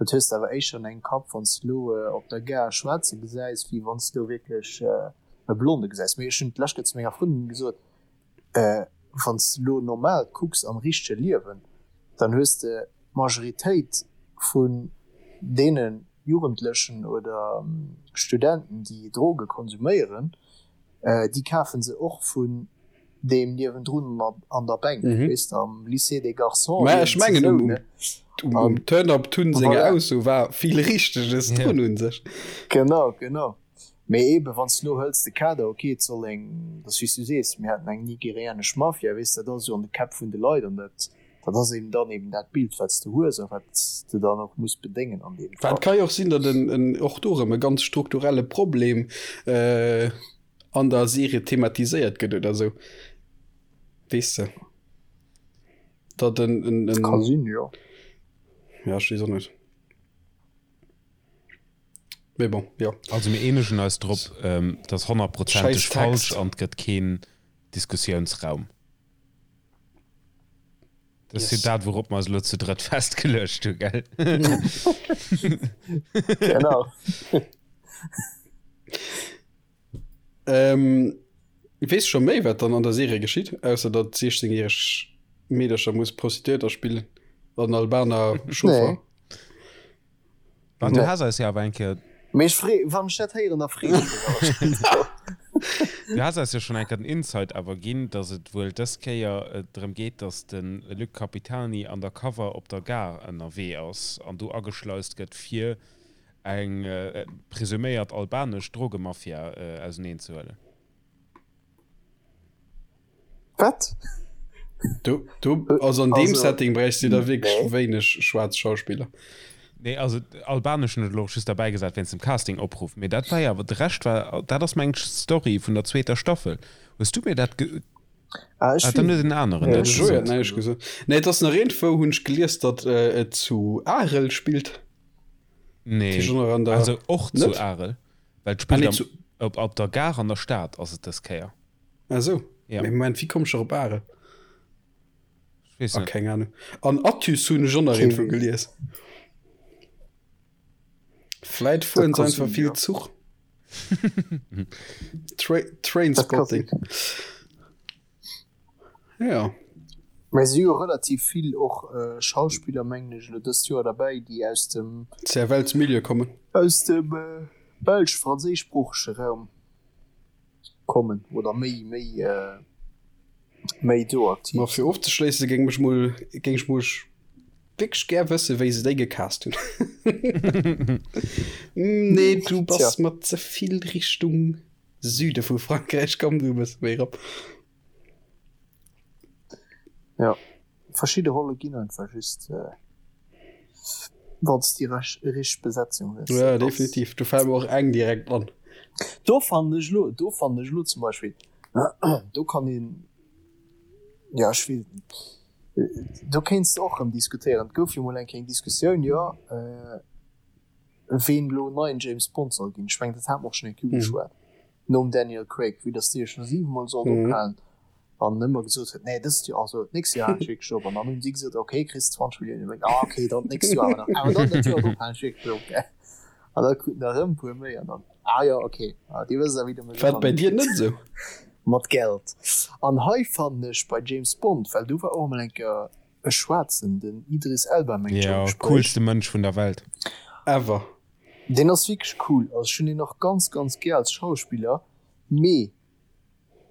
dat hues de awer éischter an engem Kapp, wann s de elo op der Gare e Schwaarze gesäis, wéi wann s de elo wierklech e Blonde gesäis. Mee ech hunn d'lescht Kéier zu menger Frëndin gesot, wann s de elo normal kucks am richtege Liewen, dann hues de d'Majoritéit vun deene Jugendlechen oder Studenten, déi Droge konsuméieren, déi kafe se och vun deem niewendrun an der Bänk, weess de, am Lycée des Garçons. Mä ech mengen, um Turn-Up Tun senger Ausso war vill Richteges drun u sech. Genau, genau. Mee eebe wann s de elo hëls de Kader, ok, et soll eng, dat ass wéi s du sees, mir haten eng nigerianesch Mafia, weess de, dat ass esou an de Käpp vun de Leit an dat, dat ass eben dann eben dat Bild, wat s de hues a wat s de dann och muss bedéngen an deem Fall. Et ka jo och sinn, datt en och do erëm e ganz strukturelle Problem an der Serie thematiséiert gëtt oder esou, weess de, datt en, en. Ka sinn, jo. Ja, ech weess och net. Mee bon, jo. Also mir eenegen eis drop, et ass honnertprozenteg falsch an et gëtt keen Diskussiounsraum. Dat ass jo dat, wourop mer eis elo zu drëtt festgeluecht hu, gell? Genau. Weess scho méi, wat dann an der Serie geschitt, ausser datt 16 järeg Meedercher muss Prostituéierter spillen an Albaner Chauffer? Nee. An du has eis jo awer eng Kéier. Mee ech free, wann ech dat héieren, da free ech mech awer schonn drop. Du has eis jo schonn eng Kéier den Insight awer ginn, datt et wuel dës Kéier drëm geet, datt de Luc Capitani undercover op der Gare ënnerwee ass an do ageschleist gëtt, fir eng presuméiert albanesch Drogemafia auseneenzehuelen. Wat? Du, du, also an deem Setting bräichst du da wierklech nee. wéineg schwaarz Schauspiller. Nee, also albanesch hunn ech elo och just derbäi gesat wéinst dem Casting-Opruff, mee dat war jo awer, de Rescht war, dat ass meng Story vun der zweeter Staffel. Hues du mir dat ge. Ah, ech ah, dann huet en aneren dat gesot. Näischt gesot. Nee, et ass nach iergendwou hunn ech gelies, datt äh, et zu Arel spillt. Nee, also och zu Arel. Well et spillt ah, nee, am, op, op der Gare an der Stad ass et dës Kéier. Ah sou. Ja. Mee Moment, wéi komm ech op Arel? Ech weess ah, net. Keng Ahnung. An Athus hunn ech och nach iergendwou gelies. Vläit fueren se einfach vill Zuch. Tra Trainspotting. Ja. Mä si hu relativ vill och Schauspiller, mengen ech, elo dëst Joer derbäi, déi aus dem. Cervellsmilieu kommen. Aus dem belsch-franséischsproochege Raum kommen oder méi, méi, méi do aktiv Ma fir ofzeschléisse géing mech mol, géing ech mol wierklech gär wësse wéi se déi gecast hunn. Nee, du bass mer ze vill Richtung Süde vu Frankräich, komm du e bësse méi erop. Ja, verschidde Rolle ginn einfach just äh, wann s déi richteg Besetzung hues. Ja, definitiv. Do fält mir och eng direkt an. Do fannen ech elo, do fannen ech elo zum Beispill, do kann een, ja ech weess et net, do kéints de och erëm diskutéieren. Et gouf jo mol eng Kéier eng Diskussioun, jo, äh, ween elo neien James Bond soll ginn. Ech mengen, dat hate mer och schonn eng Kéier ugeschwat. Nom Daniel Craig, vue dass dee jo scho 7 mol sollt ophalen an ëmmer gesot huet, nee dëst Joer, also d'nächst Joer halen ech wierklech op. An dann hunn si gesot, ok, kriss 20 Milliounen méi, ah ok, dann d'nächst Joer awer nach, awer dann dat Joer drop halen ech wierklech op, gell. An da kruten der erëm e puer méi an dann, ah jo, ok, ah dir wësst awer wéi der mech War et bei dir net esou? Mat Geld. An hei fannen ech bei James Bond, well do war och emol eng Kéier e Schwaarzen, den Idris Elba mengt ech am Jo, Gespréich. coolste Mënsch vun der Welt. Ever. Deen ass wierklech cool, also ech hunn deen och ganz ganz gär als Schauspiller, mee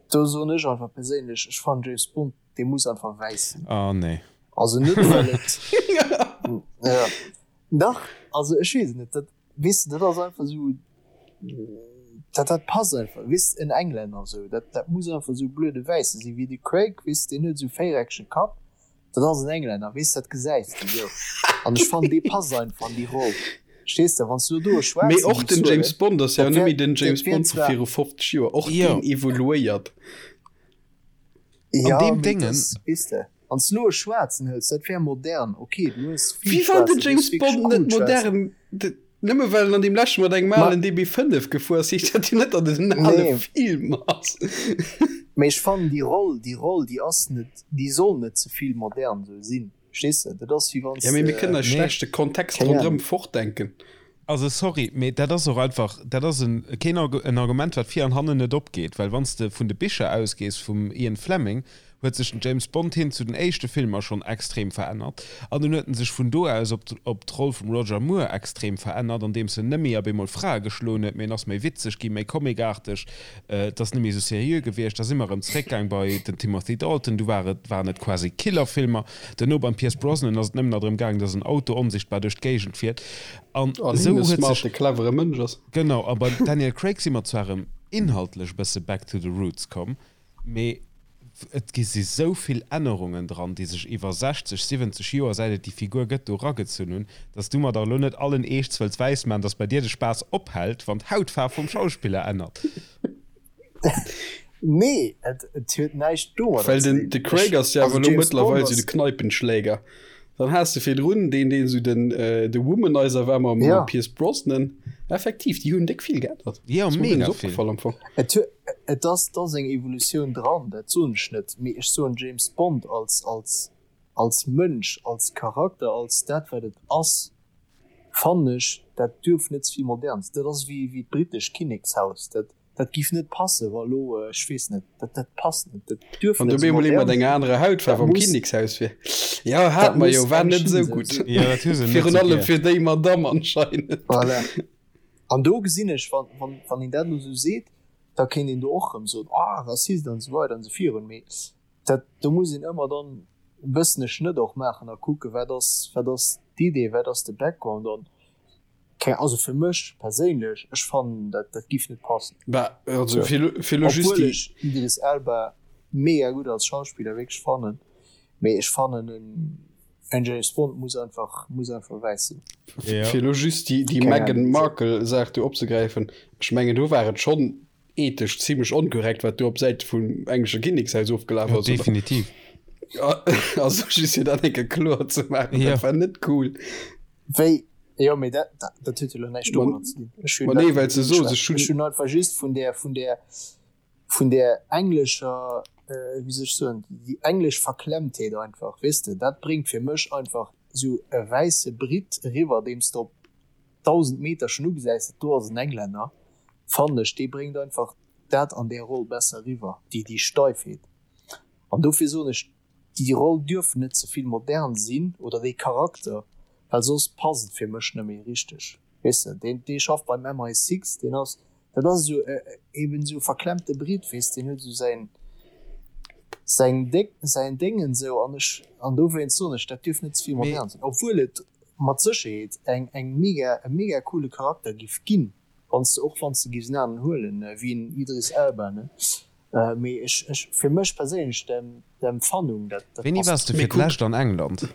do soen ech einfach perséinlech, ech fannen James Bond dee muss einfach wäiss sinn. Oh nee. Also net well et ja dach, also ech weess et net, dat weess de dat ass einfach esou dat dat passt einfach, weess de en Englänner esou, dat dat muss einfach esou blöde wäisse sinn, wéi de Craig, weess de deen huet esou véiereckege Kapp, Dat ass en Englänner, weess, dat gesäis de jo. An ech fannen, dee passt einfach an déi Roll. Verstees de, wann s du do e Schwaarzen Mee och giffs den James huelen, Bond ass jo dat net wär, méi den dat James wär Bond vu zwar, viru 50 Joer. Och Jo. deen evoluéiert. An ja, deem mee Déngen. dass, weess de, wann s du elo e Schwaarzen hëls, dat wär modern, ok, du hues vill Wéi wann den Schwaarzer, du hues James wierklech Bond net cool Schwaarzer. modern, nëmme well en an deem leschte mat engem Ma alen DB5 gefuer ass, heescht dat jo net, datt et en ale nee. Film ass. Mee ech fannen déi Roll, déi Roll, déi ass net, déi soll net ze vill modern sou sinn, verstees de? Dat ass wéi wann Ja, s mee mir de, kënnen eis Nee. schlecht de Kontext keng ronderëm Ahnung. fortdenken. Also sorry, mee dat ass och einfach, dat ass en, keen Argu-, en Argument, wat vir an hannen net opgeet, well wann s de vun de Bicher ausgees vum Ian Fleming, huet sech den James Bond hin zu den éischte Filmer schonn extrem verännert an dunn huet en sech vun do aus op op d'Roll vum Roger Moore extrem verännert, andeems en net méi op eemol Frae geschloen huet, mee en ass méi witzeg ginn, méi comicarteg, et ass net méi esou seriö gewiescht. Da si mer erëm zeréckgaang bei den Timothy Dalton, du war et, waren et quasi Killerfilmer. Duerno beim Pierce Brosnan ass et nëmmen nach drëm gaang, dass en Auto onsichtbar duerch d'Géigend fiert an An esou hien e huet sech. smarte, clevere Mënsch ass. Genau, a beim Daniel Craig si mer zwar erëm inhaltlech e bësse back to the roots komm, Mee et gi si sou vill Ännerungen dran, déi sech iwwer 60, 70 Joer, säit et déi Figur gëtt, do eragezunn hunn, dass du mer dach elo net allen Eeschts wëlls wäismaachen, dass bei dir de Spaass ophält, wann d'Hautfaarf vum Schauspiller ännert. Nee, et huet näischt domadder Well ze den dinn. de Craig Ech, ass jo awer also elo James Bond mëttlerweil sou de ass, Kneipenschläger. Dann has de virdrun deen, deen sou den de Womanizer war mam ja. Pierce Brosnan. Effektiv, déi hunn déck vill geännert. Jo, Ass mer guer mega net vill. opgefall am Fong. Et hu, et ass, et ass eng Evolutioun dran, dat soen ech net, mee ech soen James Bond als, als, als Mënsch, als Charakter, als dat wat et ass, fannen ech, dat duerf net ze vill modern sinn. Dat ass wéi, wéi d'britescht Kinnekshaus, dat, Dat giff net passen, wa lo, ech weess net, dat, dat passt net, dat duerf Wann net du esou bemol ee mat modern enger sinn, anerer Hautfaarf dat am muss, Kinnekshaus wier. Jo, dat hat mer jo, muss war eng net Schinn esou sou gutt. sinn. Jo, dat hu se net Virun sou allem gär. fir déi Madamm anscheinend. Voilà. An do gesinn ech, wann, wann, wann een dat elo esou seet, da kéint een do och erëm soen, ah, Rassist an esou weider an esou virun, mee dat, do muss een ëmmer dann e bëssen e Schnëtt och maachen a kucken, wat ass, wat ass d'Idee, wat ass de Background an Keng, also fir mech perséinlech, ech fannen dat dat giff net passen. Bah, also So. fir lo, fir lo just Obwuel déi. ech Idris Elba mega gutt als Schauspiller wierklech fannen, mee ech fannen en en James Bond muss einfach muss einfach wäiss sinn. Ja. Fir lo just déi, déi Keng Meghan Ahnung wéisou. Markle Saach do opzegräifen, ech mengen do war et schonn ethesch zimmlech onkorrekt wat do op Säite vum englesche Kinnekshaus ofgelaf Ja, ass, oder? definitiv. Also just fir dat eng Kéier kloer ze maachen, Ja. dat war net cool. Wéi, jo, mee dat, dat, dat huet jo lo näischt domadder ze dinn. Ech hunn Ma dat nee, well net se soos, ugeschwat. ech hunn. Ech hunn einfach just vun där, vun där, vun där englescher, wéi soll ech soen, déi englesch Verklemmtheet einfach, weess de, dat bréngt fir mech einfach esou e wäisse Brit eriwwer, deem s de op 1.000 Meter schonn ugesäis, dat do ass en Englänner, fannen ech, dee bréngt einfach dat an där Roll besser eriwwer, déi, déi Steifheet. An dofir soen ech, Déi Roll duerf net ze vill modern sinn oder dee Charakter, well soss passt et fir mech net méi richteg. Weess de, deen, dee schafft beim MI6, deen ass, dat ass esou eben esou e verklemmte Brit, weess, deen huet esou säin, säin Déng, säin Déngen esou an ech, an dowéinst soen ech, dat duerf net ze vill Mee. modern sinn, obwuel et mat Sécherheet eng, eng mega, e mega coole Charakter giff ginn, wann s de, och wann s de giffs en aneren huelen, wéi en Idris Elba, ne. Mee ech, ech, fir mech perséinlech, d'Empfannung, dat, dat Wéini passt waars de Mee fir kuck. d'lescht an England?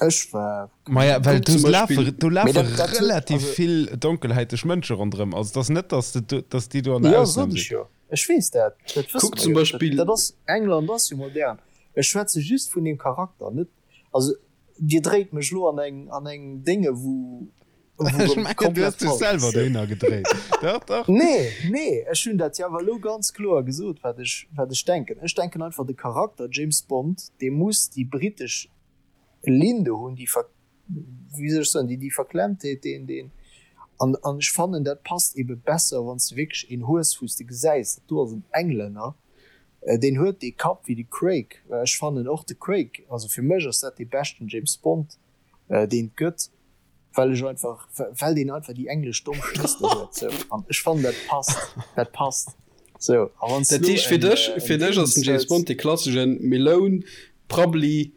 Ech war. Maja, well Kuck do zum lafe, Beispill. do Mee lafe dat, dat huet, relativ also. vill donkelhäiteg Mënsche ronderëm. Also et ass net, dass de do, dass déi do an der Jo, Ausnam sot ech sinn. jo. Ech weess dat, dat wësse Kuck mer zum jo. Dat, Beispill. dat ass, England ass jo modern. Ech schwätze just vun deem Charakter, net, also Dir dréit mech lo an eng an eng Dénge wou Ech mengen du hues dech selwer dohinner gedréit. Dach dach. Nee nee ech hunn dat jo awer elo ganz kloer gesot wat ech wat ech denken. Ech denken einfach de Charakter James Bond dee muss déi britesch Linn do hunn, déi ver wéi soll ech soen déi déi Verklemmtheet deen deen an an ech fannen dat passt ebe besser wann s de wierklech een hues wou s de gesäis dat do ass en Englänner Deen huet dee Kapp wéi de Craig. Ech fannen och de Craig, also fir mech ass dat dee beschten James Bond deen et gëtt, well ech einfach, well deen einfach déi englesch domm Schnëstel huet sou an ech fannen dat passt, dat passt sou. A wann s Dat du heescht fir en dech, en fir dech ass Dingens den James hues. Bond dee klasseschen Meloun, Prabbeli,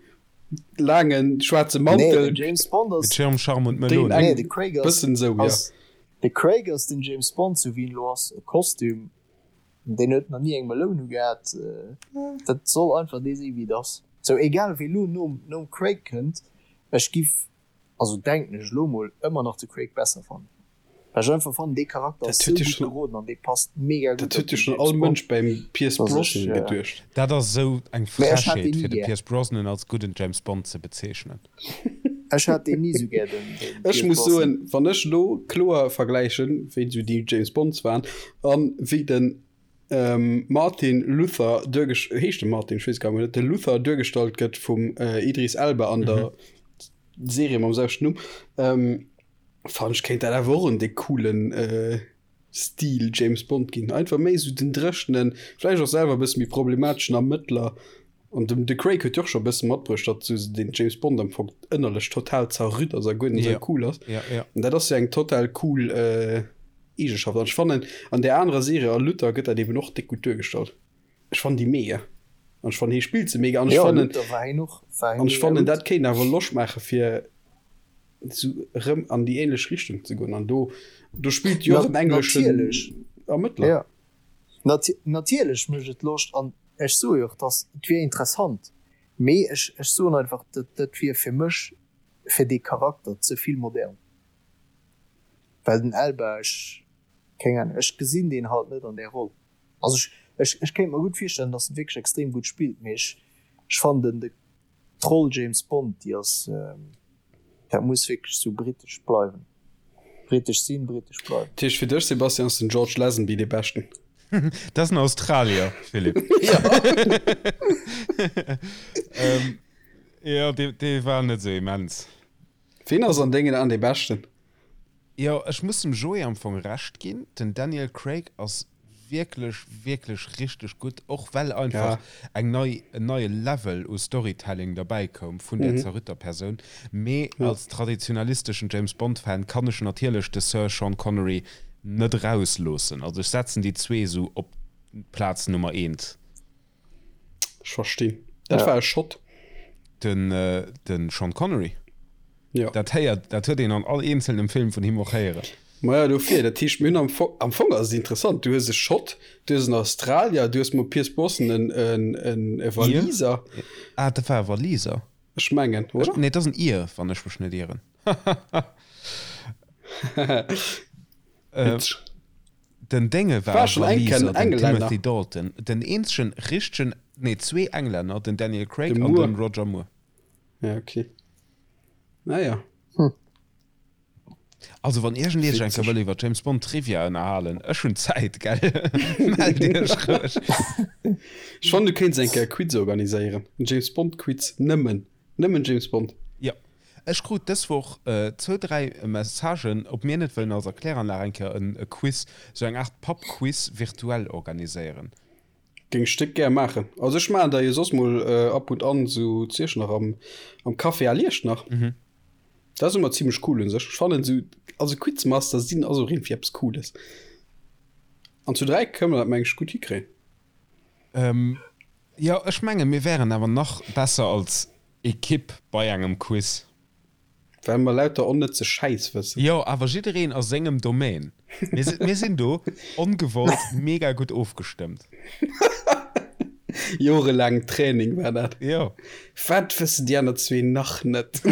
laangen schwaarze Nee, Mantel. den James Bond Mit ass, Schirm, Charme und Deen Melone. nee eng de Craig ass, bëssen sou, jo. ass, de Craig ass den James Bond sou wéi en elo ass, e Kostüm Deen huet nach ni eng Meloun ugehat. Dat soll einfach dee si wéi et ass. Sou egal wee lo nom nom Craig kënnt. Ech giff, also denken ech elo mol, ëmmer nach de Craig besser fannen. Well ech einfach fannen, dee Charakter ass sou gutt geroden an dee passt mega gutt Dat huet jo schonn all Mënsch beim Pierce Brosnan geduecht. Dat ass esou eng Frechheet, fir de Pierce Brosnan als gudden James Bond ze bezeechnen. Ech hat deen ni sou gär, den Pierce Brosnan. Ech muss soen, wann ech elo kloer vergläichen, wéi esou déi James Bonds waren an wéi den Martin Luther duergest-, heescht de Martin? Ech weess gar net, de Luther duergestallt gëtt vum Idris Elba an der Serie mam selwechten Numm, fannen ech kéint dat awer och en déck coolen Stil James Bond ginn. Einfach méi esou den dréchenen, vläicht och selwer e bësse méi problemateschen Ermëttler. An dem de Craig huet jo och scho e bësse matbruecht, datt esou den James Bond am Fong ënnerlech total zerrütt ass a guer net esou cool ass. An dat ass jo eng total cool Eegenschaft. An ech fannen an där anerer Serie a Luther gëtt dat eben och déck gutt duergestallt. Ech fannen déi mega. An ech fannen hie spillt se mega. An ech fannen, an ech fannen dat kéint awer Loscht maache fir esou erëm an déi ähnlech Richtung ze goen. An do, do spillt jo och en engleschen Ermëttler. Jo, natierlech mécht et Loscht. An ech soe jo och, dass et wier interessant. Mee ech, ech soen einfach, dat, dat wier fir mech, fir dee Charakter ze vill modern. Well den Elba, ech, keng Ahnung, ech gesinn deen halt net an där Roll. Also ech, ech, ech kéint mer gutt virstellen, dass en wierklech extrem gutt spillt, mee ech, ech fannen den, de, d'Roll James Bond, déi ass, dat muss wierklech sou britesch bleiwen. Britesch sinn, britesch bleiwen. Dat heescht fir dech, Sebastian, ass den George Lazenby dee Beschten? Dat ass en Australier, Philippe. Jo, dee, dee war net sou immens. Ween ass an dengen Aan dee Beschten? Jo, ech muss dem Joé am Fong Recht ginn, den Daniel Craig ass wierklech, wierklech richteg gutt, och well einfach eng nei, en neie Level u Storytelling derbäi koum vun där zerrütter Persoun. Mee als traditionalisteschen James Bond Fan kann ech natierlech de Sir Sean Connery net erausloossen. Also ech setzen déi zwee esou op d'Plaz Nummer eent. Ech verstinn. Dat war e Schott. Den, den Sean Connery. Jo. Dat héiert, dat huet een an all eenzelnem Film vun him och héieren. Maja, dofir, dat heescht, mir hunn am Fong, am Fong ass et interessant, du hues e Schott, du hues en Australier, du hues mam Pierce Brosnan en, en, en, e Waliser. Ah, dat war e Waliser. Ech mengen, oder? Nee, et ass en Ir, wann ech mech net ieren. Witzeg. Den Dénge war War schon eng Waliser, Kéier en den Englänner. Timothy Dalton. Den eenzegen richtegen, nee, zwee Englänner, den Daniel Craig De an Moore. den Roger Moore. Ja, okay. Naja. Hm. Also wann iergend Iech eng Kéier Witzeg. wëll iwwer James Bond Trivia ënnerhalen, ech hunn Zäit, gell? Mellt Iech roueg. Ech fannen, du kéints eng Kéier e Quiz organiséieren. En James Bond Quiz. Nëmmen. Nëmmen James Bond. Jo. Ech krut dës Woch zwou, dräi Messagen, ob mir net wëllen als Erkläranlag eng Kéier e Quiz, sou eng Aart Pub-Quiz virtuell organiséieren. Géing ech déck gär maachen. Also ech maachen der jo soss mol ab und an sou zu Iechternach am am Café à l'Iechternach. Dat ass ëmmer zimlech cool un sech. Ech fannen sou, also Quizmaster sinn ass och iergendwéi eppes Cooles. An zu 3 kënne mer dat meng ech gutt hikréien. Jo, ech menge mir wären awer nach besser als Ekipp bei engem Quiz. Well mer lauter onnëtze Schäiss wëssen. Jo, awer jiddereen a sengem Domaine. Mir si, mir sinn do ongewollt mega gutt ofgestëmmt. Jorelaang Training war dat. Jo. Wat wëssen déi aner zwee nach net?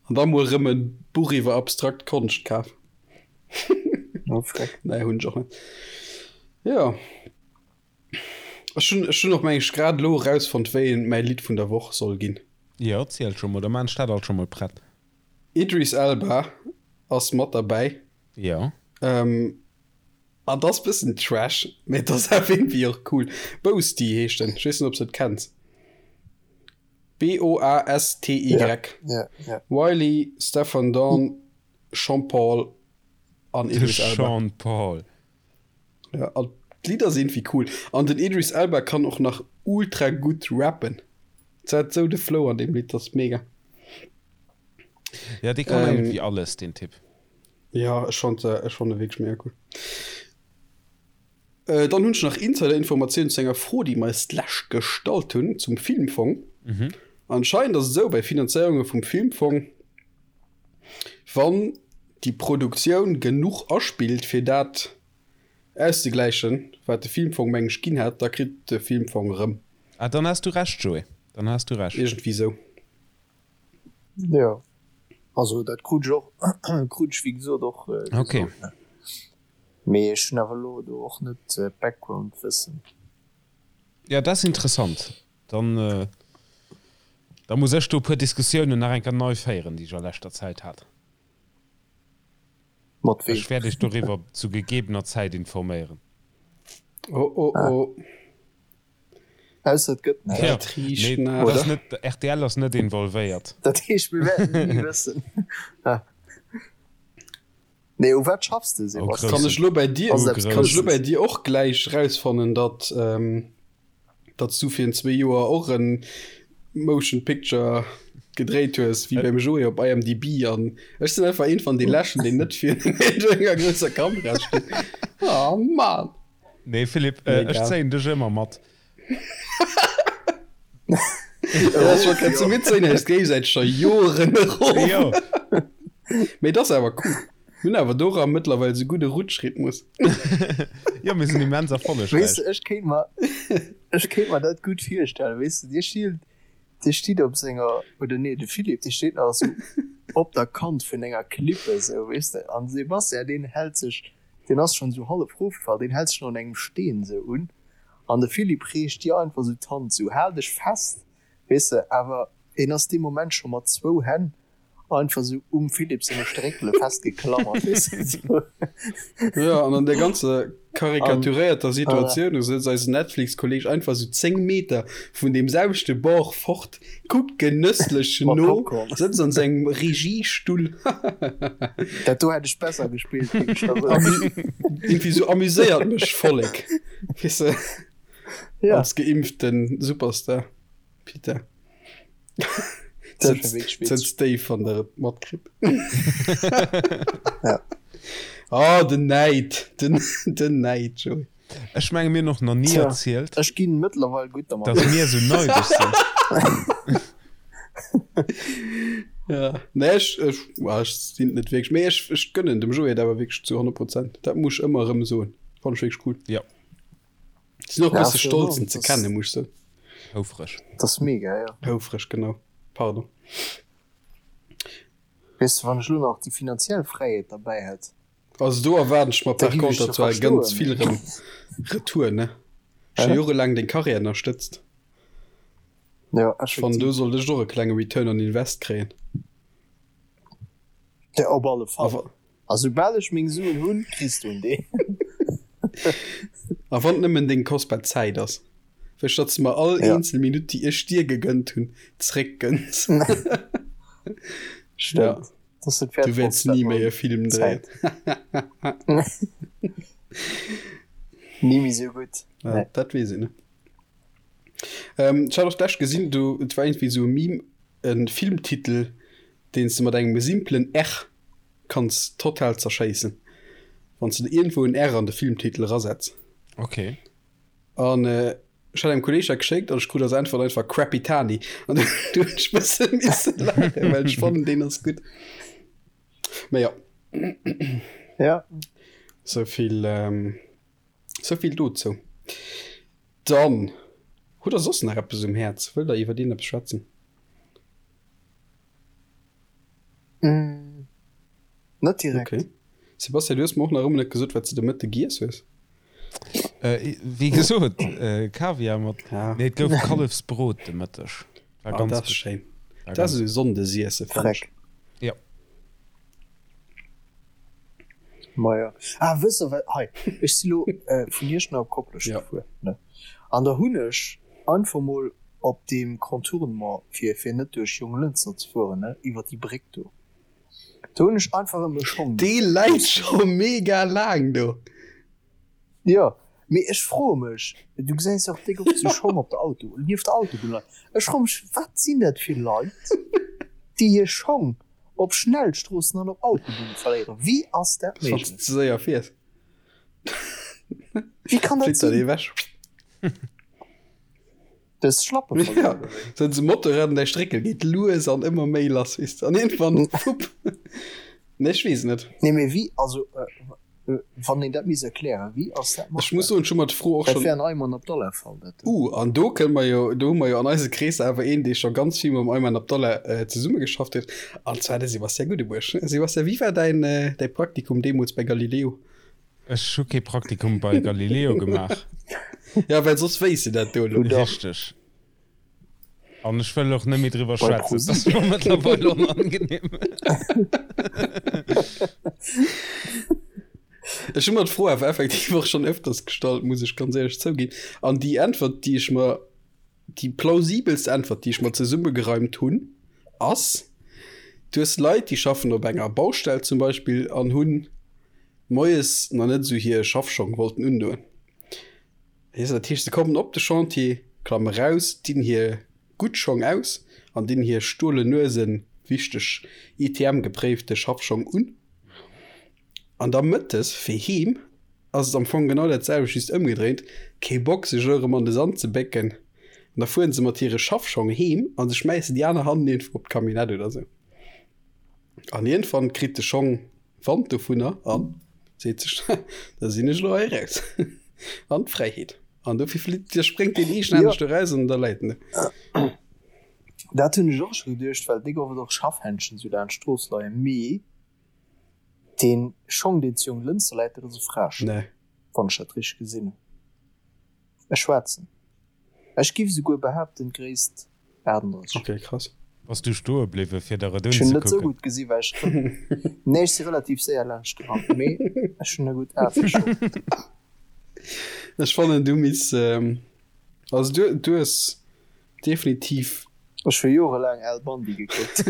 An da mol erëm e Buch iwwer abstrakt Konscht kaf. Oh, freck. Nee, hunn ech och net. Jo. Ech hunn, ech hunn och meng ech grad elo erausfonnt, wéi een mäi Lidd vun der Woch soll ginn. Jo, ziel scho mol, da maan ech dat alt scho mol prett. Idris Elba ass mat derbäi. Jo. Ähm, an et ass bëssen Trash, mee et ass awer iergendwéi och cool. Boasty heescht en, ech weess net, ob s de et kenns. B-O-A-S-T-Y. Ja, ja, ja. Wiley, Stefan Dawn, Sean Paul an De Idris Elba. Sean Paul. Ja, an d'Lidder sinn iergendwéi cool. An den Idris Elba kann och nach ultra gutt rappen. Se hat sou de Flow an deem Lidd, dat ass mega. Ja, dee kann Ähm, iergendwéi alles, deen Typ. Ja, ech fand, ech fand e wierklech mega cool. Äh, dann hunn ech nach Insider-Informatiounen zu enger Fro, déi mer eis d'lescht gestallt hunn zum Filmfong. Mhm. Anscheinend ass et esou bei Finanzéierunge vum Filmfong, Wann déi Produktioun genuch aspillt fir dat auszegläichen, wat de Filmfong meng ech ginn hat, da kritt de Filmfong erëm. Ah, dann has du Recht, Joé. Dann has du Recht. Iergendwéi sou. Jo, also dat krut ech och, krut ech wéi gesot och gesot. Okay. Mee ech hunn awer elo do och net d'Background-Wëssen. Ja, dat ass interessant. Dann, da muss ech do e puer Diskussiounen nach eng Kéier nei féieren, déi ech a leschter Zäit hat. Mat weem? Ech wäert iech doriwwer zu gegebener Zäit informéieren. Oh, oh, oh. Ausser et gëtt näischt. Dat riicht nach. Nee, dat net, rtl ass net involvéiert. Dat heescht, mir wäerten et ni wëssen. Nee, u wat schaffs de, Sebastian? Kann ech lo bei dir, kann ech lo bei dir och gläich rausfannen, datt, datt s du virun zwee Joer och en Motion Picture gedréit hues, wéi beim Joé op IMDb an ech sinn einfach een van de Leschten, deen net virun enger grousser Kamera steet. Oh Mann! Nee Philippe, äh, ech zéien dech ëmmer mat. Géisäiteg scho Joren erof. Mee et ass awer cool. Mir hunn awer dora mëttlerweil esou gudde Rutschrhythmus. Jo, mir sinn immens erfollegräich. Weess de, ech kéint mer, ech kéint mer dat gutt virstellen. Weess de, dir stilt, dir stitt op senger, oder nee, de Philippe, dee steet nach esou op der Kant vun enger Klippe esou, weess de, an de Sebastian, deen hält sech Deen ass schon sou hallef rofgefall, deen hält sech nach un engem Steen sou un an de Philippe reecht dir einfach sou d'Hand sou, hal dech fest, weess de, awer en ass dee Moment scho mat zwou Hänn einfach sou um Philippe senge Stréckele festgeklammert, weess de, sou. Jo, an an där ganzer karikaturéierter Situatioun, do sëtzt eisen Netflix-Kolleg einfach sou 10 Meter vun deem selwechte Bord fort, Kuckt genësslech no, sëtzt an sengem Regiestull. Dat do hätt ech besser gespillt, géif ech der soen. Irgendwie sou amuséiert mech Vollek, weess de, Ja. als geimpften Superstar. Peter. Dat wär wierklech witzeg. Sëtzt déif, wann der et matkritt. Ja. Oh, den Näid, den, den Näid, Joé. Ech menge mir hunn och nach ni erzielt. Ech ginn mëttlerweil gutt dermat. Datt mir esou neideg sinn. Ja, nee, ech, ech, well ech sinn et net wierklech, mee ech, ech gönnen dem Joé et awer wierklech zu 100 Prozent. Dat muss ech ëmmer erëm soen. Fannen ech wierklech cool. Ja. Sinn och e bësse stolz en ze kennen, muss ech soen. Houfreg. Dat ass mega, ja. Houfreg, genau. Pardon. Weess de, wann ech elo nach déi finanziell Fräiheet derbäi hätt. Also do erwaarden ech mer par contre zwar ganz vill rëm retour, ne? Scho jorelaang deng Karriär ënnerstëtzt. Ja, Ech fannen do sollt ech och e klenge Return on Invest kréien. Ja, op alle Fall. A soubal ech meng Suen hunn, kriss du en deen. A wann et nëmmen deng kostbar Zäit ass. Wësch datt s de mer all eenzel Minutt déi ech dir gegënnt hunn, zréckgënns. Stëmmt. Du wäerts ni méi e Film dréien. Ni méi sou gutt. Ja, dat weess een net. Ähm, ech hat och d'lescht gesinn, du, et war iergendwéi sou e Meme, e Filmtitel, deen s de mat engem simplen R kanns total zerschéissen, wann s de iergendwou en R an de Filmtitel erasetz. Okay. An ech hat engem Kolleg dat geschéckt an ech krut als Äntwert einfach Crappy Tani. An du hunn ech bësse misse laachen, well ech fannen, deen ass gutt. Mä jo. Ja. Souvill, souvill dozou. Dann, hutt der soss nach eppes um Häerz? Wëllt der iwwer iergendeppes schwätzen? Mm, net direkt. Okay. Sebastian, du hues mer och nach ëmmer net gesot, wat s de de Mëtte giess hues. Äh, wéi gesot, äh, Kaviar mat. Ja. Nee, et gouf Kallefsbrot de Mëtteg. War ah, ganz dat ass schéin. Dat ass esou Sonndesiesse, fannen ech. Ja. Ma ja. Ah, wësst der wat, hei, ech si lo äh, vun Iechternach op Koplescht ja. gefuer, ne? An da hunn ech einfach mol op deem Contournement, fir, fir net duerch Jonglënster ze fueren, ne, iwwer déi Bréck do, do hunn ech einfach erëm e Schong Dee läit scho mega laang do. Jo, mee ech froe mech, du gesäis jo och déck oft sou Schong op der Auto, nieft der Autobunn leien, ech froe mech, wat sinn dat fir Leit, déi hir Schong op Schnellstroossen an op Autobunne verléieren? Wéi ass dat Wann s méiglech? de ze séier fiers. Wéi kann dat Flitt dat sinn? ewech. Dës Schlappe Ja, verluer oder wéi? sou se Motorrad an däi Stréckel geet lues an ëmmer méi lass, weess de, an iergendwann, fupp. Nee, ech weess et net. Nee, mee wéi, also. Wann een dat misst erklären, wéi ass dat Ech muss soen, ech hu mer d'Fro och Dat schonn. wär en Ayman Abdallah Fall, dat do. Uh, an do kënne mer jo, do hu mer jo an eise Kreesser awer een, dee scho ganz vill mam Ayman Abdallah zesummegeschafft huet, an zwar de Sébastien Guddebuerg. Sébastien, wéi war däin, däi Praktikum deemools bei Galileo? Ech hu kee Praktikum bei Galileo gemaach. Ja, well soss wéisst de dat do elo. Richteg. An ech wëll och net méi driwwer schwätzen. Dat ass mer mëttlerweil onangenehm. Ech hu mer d'Fro awer effektiv och schonn ëfters gestallt, muss ech ganz éierlech zouginn. An déi Äntwert, déi ech mer, déi plausibelst Äntwert, déi ech mer zesummegereimt hunn, ass, Du hues Leit, déi schaffen op enger Baustell zum Beispill an hunn moies nach net esou hir Schaffschong wollten undoen. Weess de, dat heescht, se kommen op de Chantier, klamme raus, dinn hir gutt Schong aus an dinn hir stolen Nuesen, wichteg ITM-gepréifte Schaffschong un. An da mëttes fir heem ass et am Fong genau dat selwecht, just ëmgedréint, kee Bock sech elo erëm an de Sand ze bécken. An da fueren se mat hire Schaffschong heem a se schmäissen déi aner hannen iergendwou op d'Camionnette oder sou. An iergendwann kritt de Schong Wand dovunner an seet sech, da sinn ech elo hei eraus an d'Fräiheet. An dofir flitt, da spréngt deen eegenhänneg do raus an da läit en do. Dat hunn ech och scho geduecht, well déi gouf et och Schaffhändschen esou laanscht d'Strooss leien, mee dee Schong deen zu Jonglënster läit, dat ass e Fraeschong, wann ech dat richteg gesinn hunn. E schwaarzen. Ech giff esouguer behaapten d'Gréisst 38. Ok, krass. Bass du stoe bliwwe fir der et Ech hunn net sou unzekucken? gutt gesi well ech nee ech si relativ séier laanscht gerannt mee ech hunn e gutt A fir Schong. Ech fannen du misst also du du hues definitiv. Ech hu jorelaang Al Bundy gekuckt.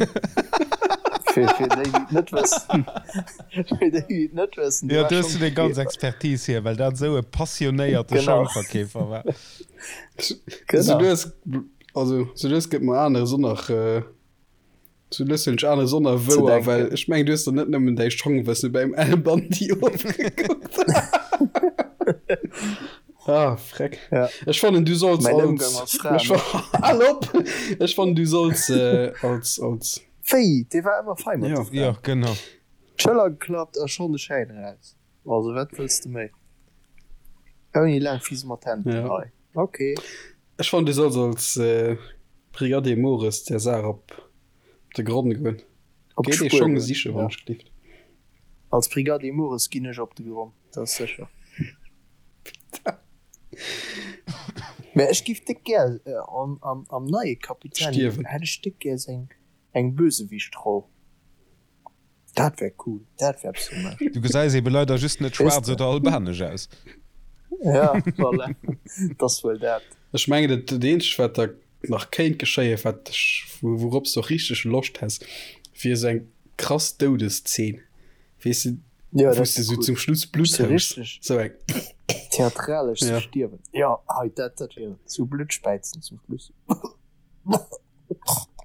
Fir fir déi déi et net wëssen fir déi déi et net wëssen, Jo, do hues du deng ganz Expertise hier, well dat esou e passionéierte Genau. Schongverkeefer war. Sou lues also sou lues gëtt mer aneres och nach sou lues hunn ech aneres och nach wouer, well ech mengen du hues der net nëmmen däi Schongwësse beim Al Bundy ofgekuckt. Ah freck. Ja. Ech fannen du solls Mäin als Ëmgang mat Fraen. Ech fa- Al op! Ech fannen du solls äh, als als Wéi? Dee war ëmmer fei mat Ja. de Fraen. Jo, genau. D'Schëller geklappt a schonn de Schäin eraus. Also wat wëlls de méi? Ouni laang Fisemantenten Ja. hei. Ok. Ech fannen du solls als äh, Brigadier Mores der Saach op de Gronn goen. Op Géi dee d'Spuer Schong goen, siche ja. wann ech gelift. Als Brigadier Mores ginn ech op de Gronn, dat ass sécher. Mä ech giff déck gär am, am, am neie Kapitän Stierwen. hätt ech déck gär seng eng Bösewichtroll. Dat wär cool, dat wär eppes fir mech. Du gesäis ebe leider just net Weess schwaarz de. oder albanesch aus. Ja, voilà, 't ass wuel dat. Ech mengen dat dat eenzegt wat da nach kéint geschéien, wat ech, wourops de och richteg Loscht häss, wier esou eng krass Doudeszeen, weess de, Ja, wou dat s de wär esou cool. zum Schluss Blutt Sou hues, richteg esou eng. theatralesch ze Ja. stierwen. Ja, hei, dat, dat wier et. Sou Blutt späizen zum Schluss.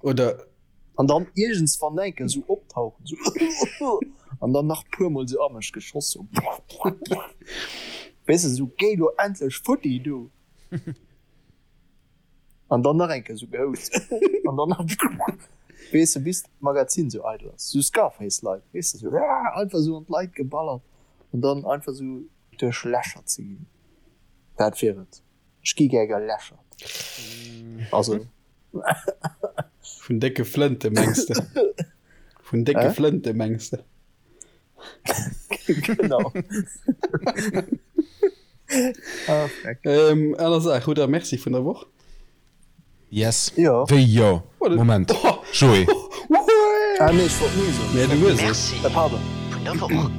Oder. An dann iergendswann enke sou optauchen, sou an dann nach puermol sou a mech geschoss, sou weess de, sou géi lo endlech futti du! An dann nach eng Kéier sou gehoust an dann nach weess de, bis d'Magazin sou eidel ass, sou Scarface-like, weess de, sou einfach sou an d'Leit geballert an dann einfach sou duerchlächert ze ginn. Dat wier et. Ech gi gär gelächert. Also. Vun décke Flënte mengs de? Vun décke Hä? Flënte mengs de? Genau. Ah, freck. Ähm, aner Saach, hutt der Merci vun der Woch? Yes. Jo. Wéi jo? Moment. Joé. Ah nee, ech wollt nee soen. Nee, du hues et. Merci Äh, pardon. vun der Woch.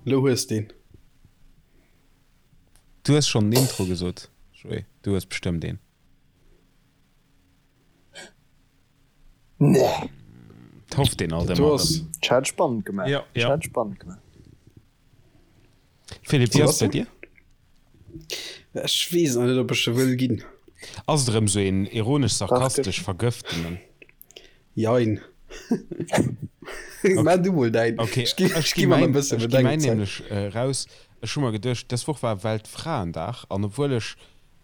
Lo hues deen. Du hues schonn den Intro gesot, Joé. Du hues bestëmmt een. Nee. Et hofft een alt Du ëmmer ass. erëm. Ech hat spannend gemaach. Ja, Ech ja. hat spannend gemaach. Philippe, wéi ass et bei dir? Ech weess nach net, ob ech e wëll ginn. Ass et erëm sou een ironesch-sarkastesch vergëftenen? Jein. Maach du mol däin. Okay, Ech gi, ech ech gi gi mer mäin, e bësse ech gi mäin Bedenkzäit. nämlech raus. Ech hu mer geduecht, dës Woch war Weltfraendag an obwuel ech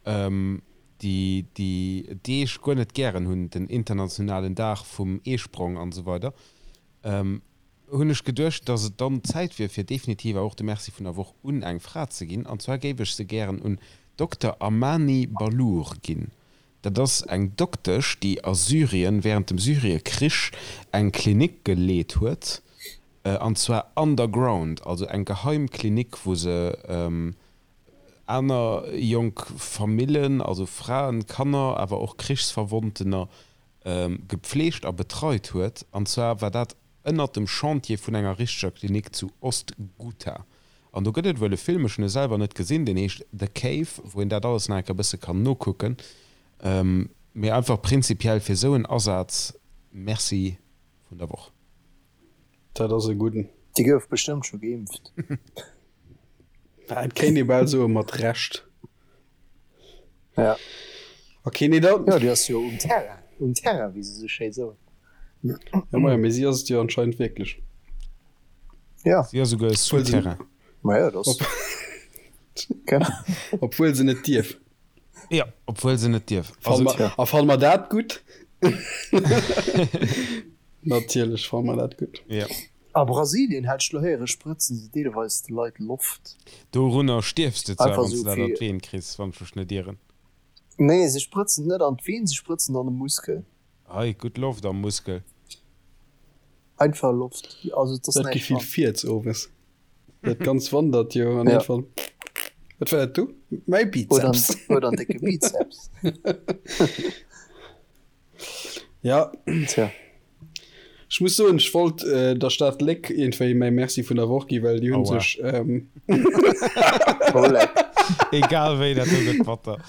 déi, déi Deeg guer net gären hunn, den internationalen Dag vum Eesprong an esou weider. Hunn ech geduecht, dass et dann Zäit wier, fir definitiv och de Merci vun der Woch un eng Fra ze ginn. An zwar géif ech se gären un Dokter Amani Ballour ginn. Dat ass eng Doktesch, déi a Syrien während dem Syrie-Krich eng Klinik geleet huet, an zwar underground, also eng geheim Klinik, wou se aner jonk Famillen, also Fraen, Kanner, awer och Krichsverwonntener gepfleegt a betreit huet. An zwar war dat ënnert dem Chantier vun enger richteger Klinik zu Ost-Ghouta. An do gëtt et wuel e Film, ech hunn e selwer net gesinn, deen heescht The Cave, wou een dat alles nach eng Kéier e bësse kann nokucken. Mee einfach prinzipiell fir esou en Asaz, Merci vun der Woch. Dat ass e gudden. Déi gouf bestëmmt scho geimpft. Et kéint ee bal soe mat Recht. Ja. Ok, nee da. Jo, déi ass jo um Terrain, um Terrain, wéi se sou schéi soen. Ja, maja, mee si ass et jo anscheinend wierklech. Ja. Si ass souguer Souterrain. Maja, dat ass. Genau. Obwuel se net dierf. Ja, obwuel se net dierf. Fanne mer, a fanne mer dat gutt? Natierlech fanne mer dat gutt. Ja. A Brasilien, hat ech lo héieren, sprëtzen se deelweis de Leit Loft. Dorunner stierfs de zwar, wann s de dat an d'Veen kriss, wann ech mech net ieren. Nee, se sprëtzen net an d'Veen, se sprëtzen an de Muskel. Ei, gutt Loft am Muskel. Einfach Loft, also et ass Dat näischt Gefill dran. Fiez owes. Dat ganz wandert jo an Ja. iergendwann, Wat war dat do? Mäi Oder Bizeps. oder en décke Bizeps. Ja. Tja. Ech muss soen, ech wollt der Stad Léck iergendwéi mäi Merci vun der Woch gi, well déi hunn Aua. sech. Oh leck. Egal wéi, dat do gëtt batter.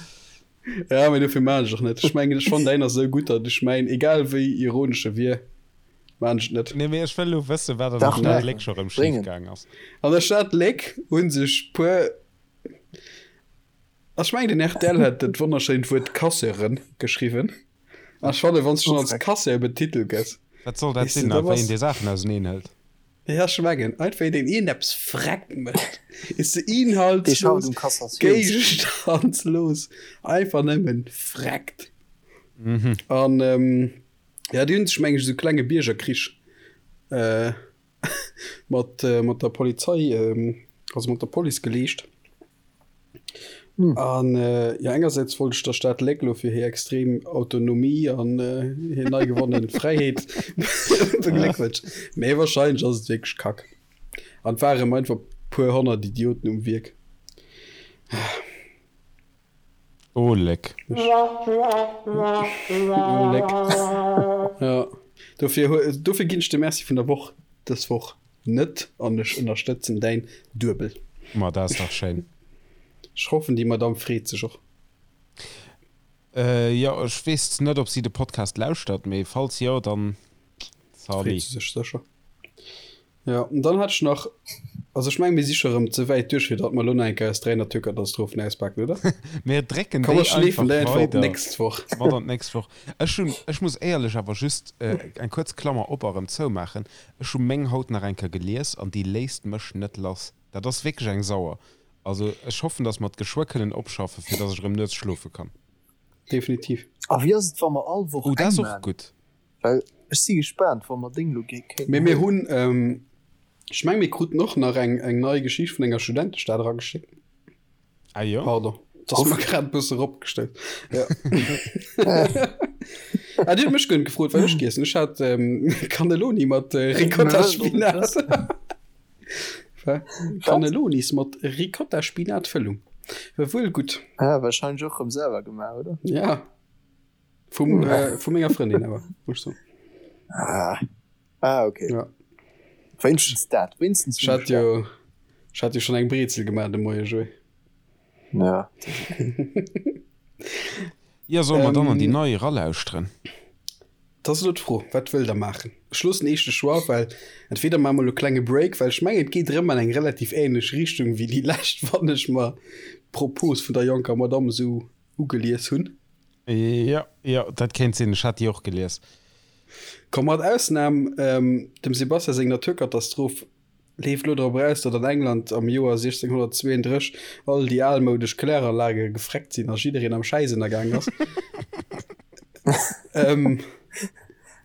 Ja, mee dofir maan ech och net. Ech mengen, ech fannen däin ass esou gutt, datt ech mäin, egal wéi ironesch e wier, maan ech et net. Nee, mee ech wëll elo wëssen, wat an der Dach, Stad nee. Léck scho rëm schif Bréngen. gaang ass. An der Stad Léck hu sech puer, ech mengen den rtl hat dat wonnerschéint Wuert Casseuren geschriwwen. An ech fannen, wann s de schonn als Casseur betitelt gëss, Wat soll dat weess de, sinn, da a wéi bass. een déi Saachen auseneen hëlt? Ja, ech mengen, einfach een, deen iergendeppes freck mécht, is de Dee schafft inhaltslos, um Cassatiounsgeriicht. géigestandslos, einfach nëmmen freckt. An ja, déi hunn sech, meng ech, esou klenge Biergerkrich mat mat der Polizei, also mat der Police geleescht. An jo, engersäits wollt ech der Stad Léck lo fir hir extrem Autonomie an hir nei gewonnen Fräiheet begléckwënschen, mee wahrscheinlech ass et wierklech Kack an et ware einfach puer 100 Idioten um Wierk. Oh Léck. Oh Léck. Jo, dofir, dofir ginn ech de Merci vun der Woch dës Woch net an ech ënnerstëtzen däin Duebel. Ma dat ass dach schéin. Ech hoffen déi Madame freet sech och. Jo, ech weess net ob si de Podcast lauschtert, mee falls jo, dann Freet salut. se sech sécher. Jo, an dann hat ech nach, also ech mengen mir si scho rëm ze wäit duerch fir datt mer elo nach eng Kéier eis 3 Naturkatastrophen auspaken, oder? Mir drécken Komm déi mer schleefen einfach déi einfach op weider d'nächst Woch. mat an d'nächst Woch. Ech hunn, ech muss éierlech awer just eng kuerz Klammer op a rëm zoumaachen, ech hu meng haut nach eng Kéier gelies an déi léisst mech net lass. Dat ass wierklech eng Sauer. Also ech hoffen, datt mer et geschwë kënnen opschaffen, fir datt ech erëm nuets schlofe kann. Definitiv. A wéi ass et wa mer all Woch Oh, dat eng ass och maan? gutt. Well ech si gespaant, wa mer deng lo kéinten Mee mir huelen. hunn, ech meng mir kruten och nach eng eng nei Geschicht vun enger Studentestad erageschéckt. Ah jo? Pardon, dat ass mer grad e bësse eropgestellt. Ja. Ah, Dir hutt mech guer net gefrot, wat ech giess hunn. Ech hat Cannelloni mat Ricotta-Spinat. Cannellonis mat Ricotta-Spinat-Fëllung. War wuel gutt. Ah, wahrscheinlech och rëm selwer gemaach, oder? Ja. Vum, äh, vu menger Frëndin awer, muss ich soen. Ah, ah okay. Ja. Wéinstens dat, wéinstens Ech hat jo, ech hat jo schon eng Brezel gemaach de Moie, Joé. Ja. Ja, solle mer dann an déi Ähm, nei eralauschteren? Dat ass elo d'Fro, wat wëllt der maachen? Ech loossen eech de Choix, well entweder maache mer elo e klenge Break, well ech mengen, et geet erëm an eng relativ ähnlech Richtung wéi déi lescht, wann ech mer d'Propos vun der jonker Madamm esou ugelies hunn. Jo, jo, dat kéint sinn. Ech hat déi och gelies. Komm, mat Ausnam dem Sebastian seng Naturkatastroph leeft lo drop eraus, datt an England am Joer 1632 all déi almoudesch Kläranlage gefreckt sinn a jiddereen am Schäiss ënnergaang ass.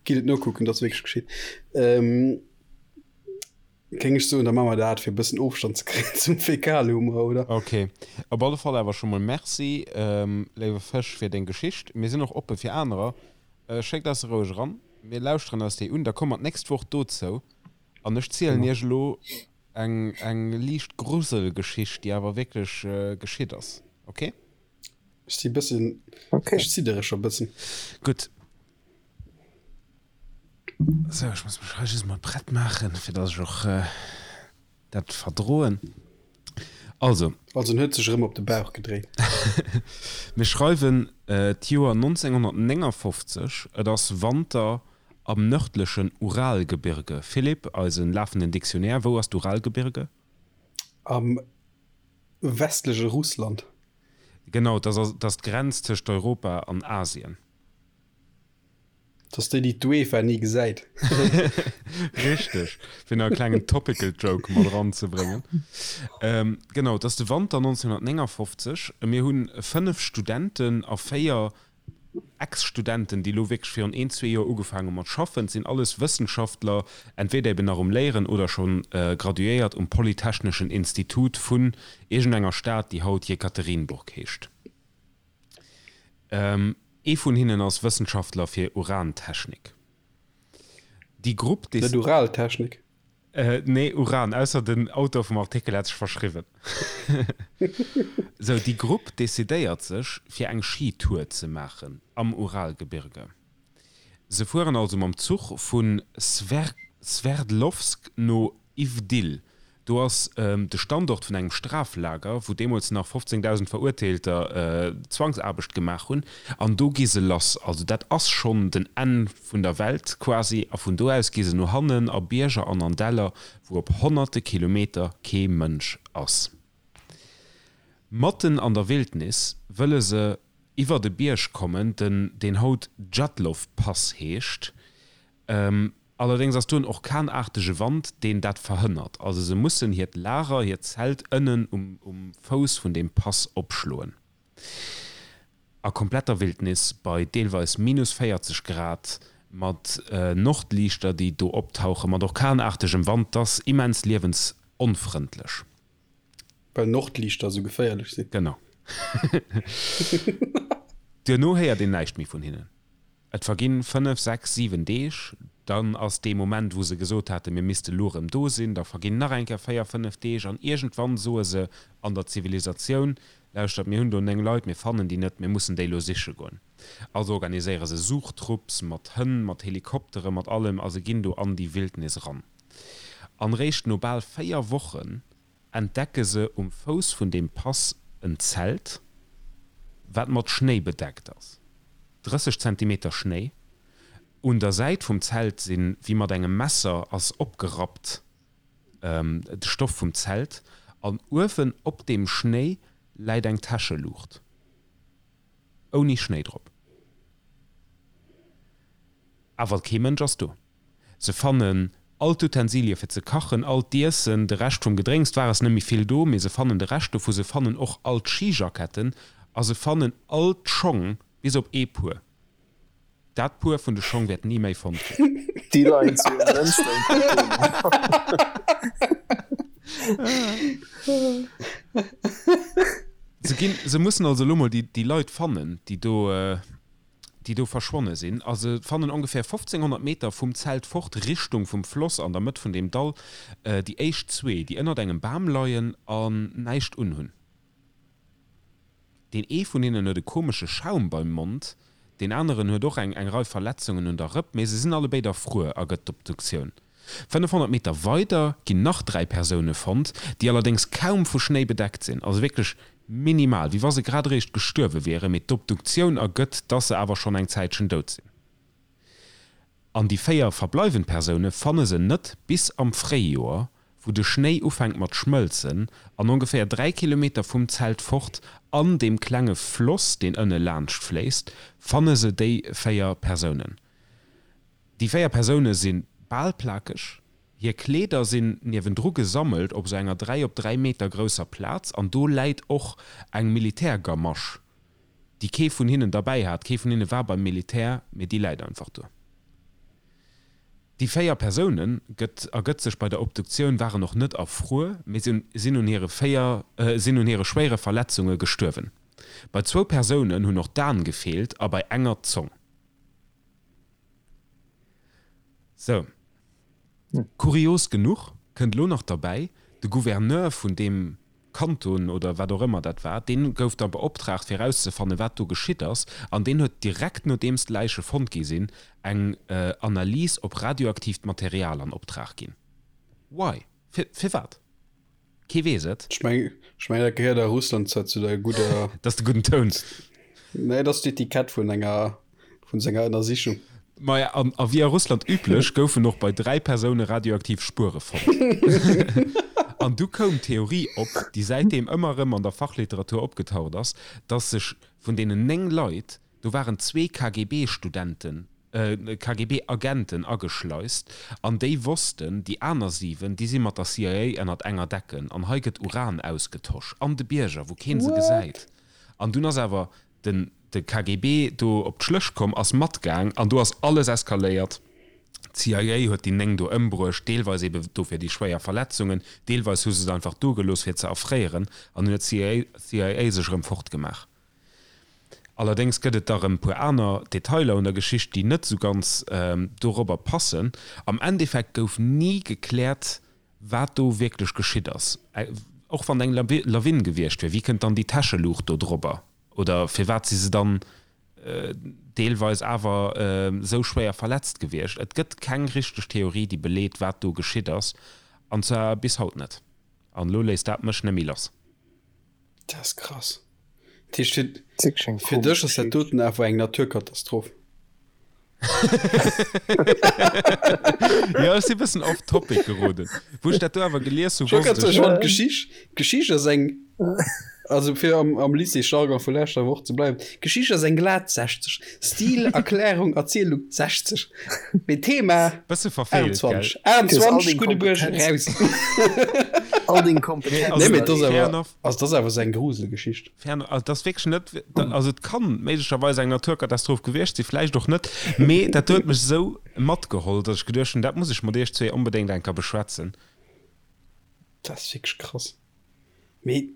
Gitt et nokucken, dat ass wierklech geschitt. Géing ech soen, da maache mer dat, fir e bëssen Ofstand ze kréien zum Fäkalhumor, oder? Ok. Op alle Fall awer scho mol Merci, léiwe Fësch, fir deng Geschicht. Mir sinn och oppe fir anerer. Schéckt eis se roueg eran. Mir lauschteren eis déi un. Da komme mer d'nächst Woch dozou. An ech zielen iech elo eng, eng liicht Gruselgeschicht, déi awer wierklech geschitt ass. Ok? Ech si bëssen, ech ziddere scho bëssen. Gutt. Sou, ech muss mech hei just mol prett maachen, fir dass ech och dat verdroen. Also. Also en huet sech erëm op de Bauch gedréit. Mir schreiwen d'Joer 1959, et ass Wanter am nërdlechen Uralgebirge. Philippe, eise lafenden Dictionnaire, wou ass d'Uralgebirge? Am westleche Russland. Genau, dat ass d'Grenz tëscht Europa an Asien. Dat ass déi, déi d'UEFA ni gesäit. Richteg, fir nach e klengen topical Joke mat eranzebréngen. Genau, et ass de Wanter 1959. Mir hu 5 Studenten a 4 Ex-Studenten, déi elo wierklech virun een, zwee Joer ugefaangen hu mat schaffen. Et sinn alles Wëssenschaftler, entweder eben nach um Léieren oder scho graduéiert um Polytechneschen Institut vun iergendenger Stad, déi haut Jekaterinburg heescht. Ee vun hinnen ass Wëssenschaftler fir Urantechnik. Déi Grupp. Net Uraltechnik? Nee, Uran, ausser den Auteur vum Artikel hat sech verschriwwen. Sou, déi Grupp decidéiert sech, fir eng Skitour ze maachen am Uralgebirge. Se fueren also mam Zuch vu Sverdlovsk no Ivdil. Do ass de Standort vun engem Straflager, wou deemools nach 15.000 Verurteelter Zwangsaarbecht gemaach hunn. An do gi se lass. Also dat ass schonn den Enn vun der Welt quasi. A vun do aus gi se no hannen a Bierger an an Däller, wou op honnerte Kilometer kee Mënsch ass. Matten an der Wildnis wëlle se iwwert e Bierg kommen, den deen haut Djatlov-Pass heescht. Allerdéngs ass do en orkanaartege Wand, deen dat verhënnert. Also se mussen hiert Lager, hiert Zelt ënnen um um Fouss vun deem Pass opschloen. A kompletter Wildnis, bei deelweis minus 40 Grad, mat Nordliichter, déi do optauchen, mat orkanaartegem Wand, 't ass immens liewensonfrëndlech. Well Nordliichter esou geféierlech sinn. Genau. Duerno héiert een näischt méi vun hinnen. Et verginn 5, 6, 7 Deeg, dann ass dee Moment, wou se gesot haten, mir misste lo erëm do sinn, da verginn nach eng Kéier 4, 5 Deeg an iergendwann soe se an der Zivilisatioun, Lauschtert, mir hunn do 9 Leit, mir fannen déi net, mir mussen déi lo siche goen. Also organiséiere se Suchtrupps mat Hënn, mat Helikoptere, mat allem a se ginn do an déi Wildnis eran. An réischt no bal 4 Wochen entdecke se um Fouss vun deem Pass en Zelt, wat mat Schnéi bedeckt ass. 30 Zentimeter Schnéi. Un der Säit vum Zelt sinn, wéi mat engem Messer ass opgerappt, de Stoff vum Zelt. An uewen op deem Schnéi läit eng Täscheluucht. Ouni Schnéi drop. Awer kee Mënsch ass do. Se fannen all d'Utensilie fir ze kachen, all d'Iessen, de Rescht vum Gedrénks, 't war es net méi vill do, mee se fannen de Rescht dovu, se fannen och all d'Skijacketten a se fannen all d'Schong, bis op ee Puer. Dat Puer vun de Schong wäert ni méi fonnt ginn. Déi leien zu Münster im Container. Se ginn, se mussen also elo mol déi, déi Leit fannen, déi do, déi do verschwonne sinn, a se fannen ongeféier 1500 Meter vum Zelt fort, Richtung vum Floss an der Mëtt vun deem Dall, déi éischt zwee, déi ënnert engem Bam leien an näischt unhunn. Deen ee vun hinnen huet e komesche Schaum beim Mond, deen aneren huet och eng eng Rei Verletzungen un der Rëpp, mee se sinn allebéid erfruer, ergëtt d'Obduktioun. 500 Meter weider ginn nach 3 Persoune fonnt, déi allerdéngs kaum vu Schnéi bedeckt sinn, also wierklech minimal, wéi wa se grad eréischt gestuerwe wieren, mee d'Obduktioun ergëtt, dass se awer schonn eng Zäitchen dout sinn. An déi 4 verbleiwend Persoune fanne se net bis am Fréijoer, wou de Schnéi ufänkt mat schmëlzen an ongeféier 3 Kilometer vum Zelt fort an deem klenge Floss, deen ënne laanscht fléisst, fanne se déi 4 Persounen. Déi 4 Persoune si bal plakeg, hir Kleeder sinn niewendru gesammelt op sou enger 3 op 3 Meter grousser Plaz an do läit och eng Militärgamasch, déi kee vun hinnen derbäi hat. Kee vun hinne war beim Militär, mee déi läit einfach do. Déi 4 Persounen, gëtt ergëtt sech bei der Obduktioun, waren och net erfruer, mee sinn un hire 4 sinn un hire schwéiere Verletzunge gestuerwen. Bei zwou Persounen hunn och d'Aen gefeelt a bei enger d'Zong. Sou. Kurios genuch kënnt elo nach derbäi, de Gouverneur vun deem Kanton oder wat och ëmmer dat war, deen gouf da beoptraagt fir erauszefannen, wat do geschitt ass, an deen huet direkt nodeems d'Läiche fonnt gi sinn, eng Analys op radioaktiivt Material an Optrag ginn. Why? Fir, firwat? Kee weess et. Ech meng, ech mengen, dat gehéiert a Russland zwar zu der gudder. Dat ass de gudden Toun. Nee, dat ass d'Etikett vun enger. Vun senger Ënnersichung. Maja, an a wéi a Russland üblech, goufen och bei 3 Persoune radioaktiv Spuere fonnt. An du koum d'Theorie op, déi säitdeem ëmmer erëm an der Fachliteratur opgetaucht ass, dass sech vun deenen 9 Leit, do waren zwee KGB-Studenten, KGB-Agenten ageschleist, an déi wossten, déi aner 7, déi si mat der CIA ënnert enger Decken, an hei gëtt Uran ausgetosch an de Bierger, wou keen se gesäit. An dunn ass awer Den de KGB do op d'Schlëch komm, ass matgaang an do ass alles eskaléiert. D'CIA huet déi 9 do ëmbruecht, deelweis ebe dofir déi schwéier Verletzungen, deelweis hu se se einfach do gelooss fir ze erfréieren an dunn huet d'CIA sech erëm fortgemaach. Allerdéngs gëtt et da rëm puer aner Detailer un der Geschicht, déi net esou ganz dorobber passen. Am Endeffekt gouf ni gekläert, Wat do wierklech geschitt ass, och wann eng Lawin gewiescht wier, wéi kënnt dann déi Täscheluucht do drobber? Oder firwat si se dann deelweis awer esou schwéier verletzt gewiescht? Et gëtt keng richteg Theorie, déi beleet, wat do geschitt ass, an zwar bis haut net. An elo léisst dat mech net méi lass. Dat ass krass. Dat heescht, fir, fir dech ass dat doten awer eng Naturkatastroph. Jo, ech si bëssen off topic geroden. Wou ech dat do awer gelies hu, wosst ech. D'Geschicht, d'Geschicht ass eng, also fir am, am Lycée-Jargon vu leschter Woch ze bleiwen, d'Geschicht ass eng glat 60. Stil, Erklärung, Erzielung 60. Mee Thema Bësse verfeelt, gell? 21, 21, Guddebuerg, raus. All deng Kompetenzen. Nee, mee dat ass awer, also dat ass awer sou eng Gruselgeschicht. Fair enough. Also, dat ass wierklech net, also et kann méiglecherweis eng Naturkatastroph gewiescht sinn, vläicht och net, mee dat huet mech esou matgeholl, datt ech geduecht hunn, dat muss ech mat iech zwee onbedéngt eng Kéier beschwätzen. Dat ass wierklech krass. Mee.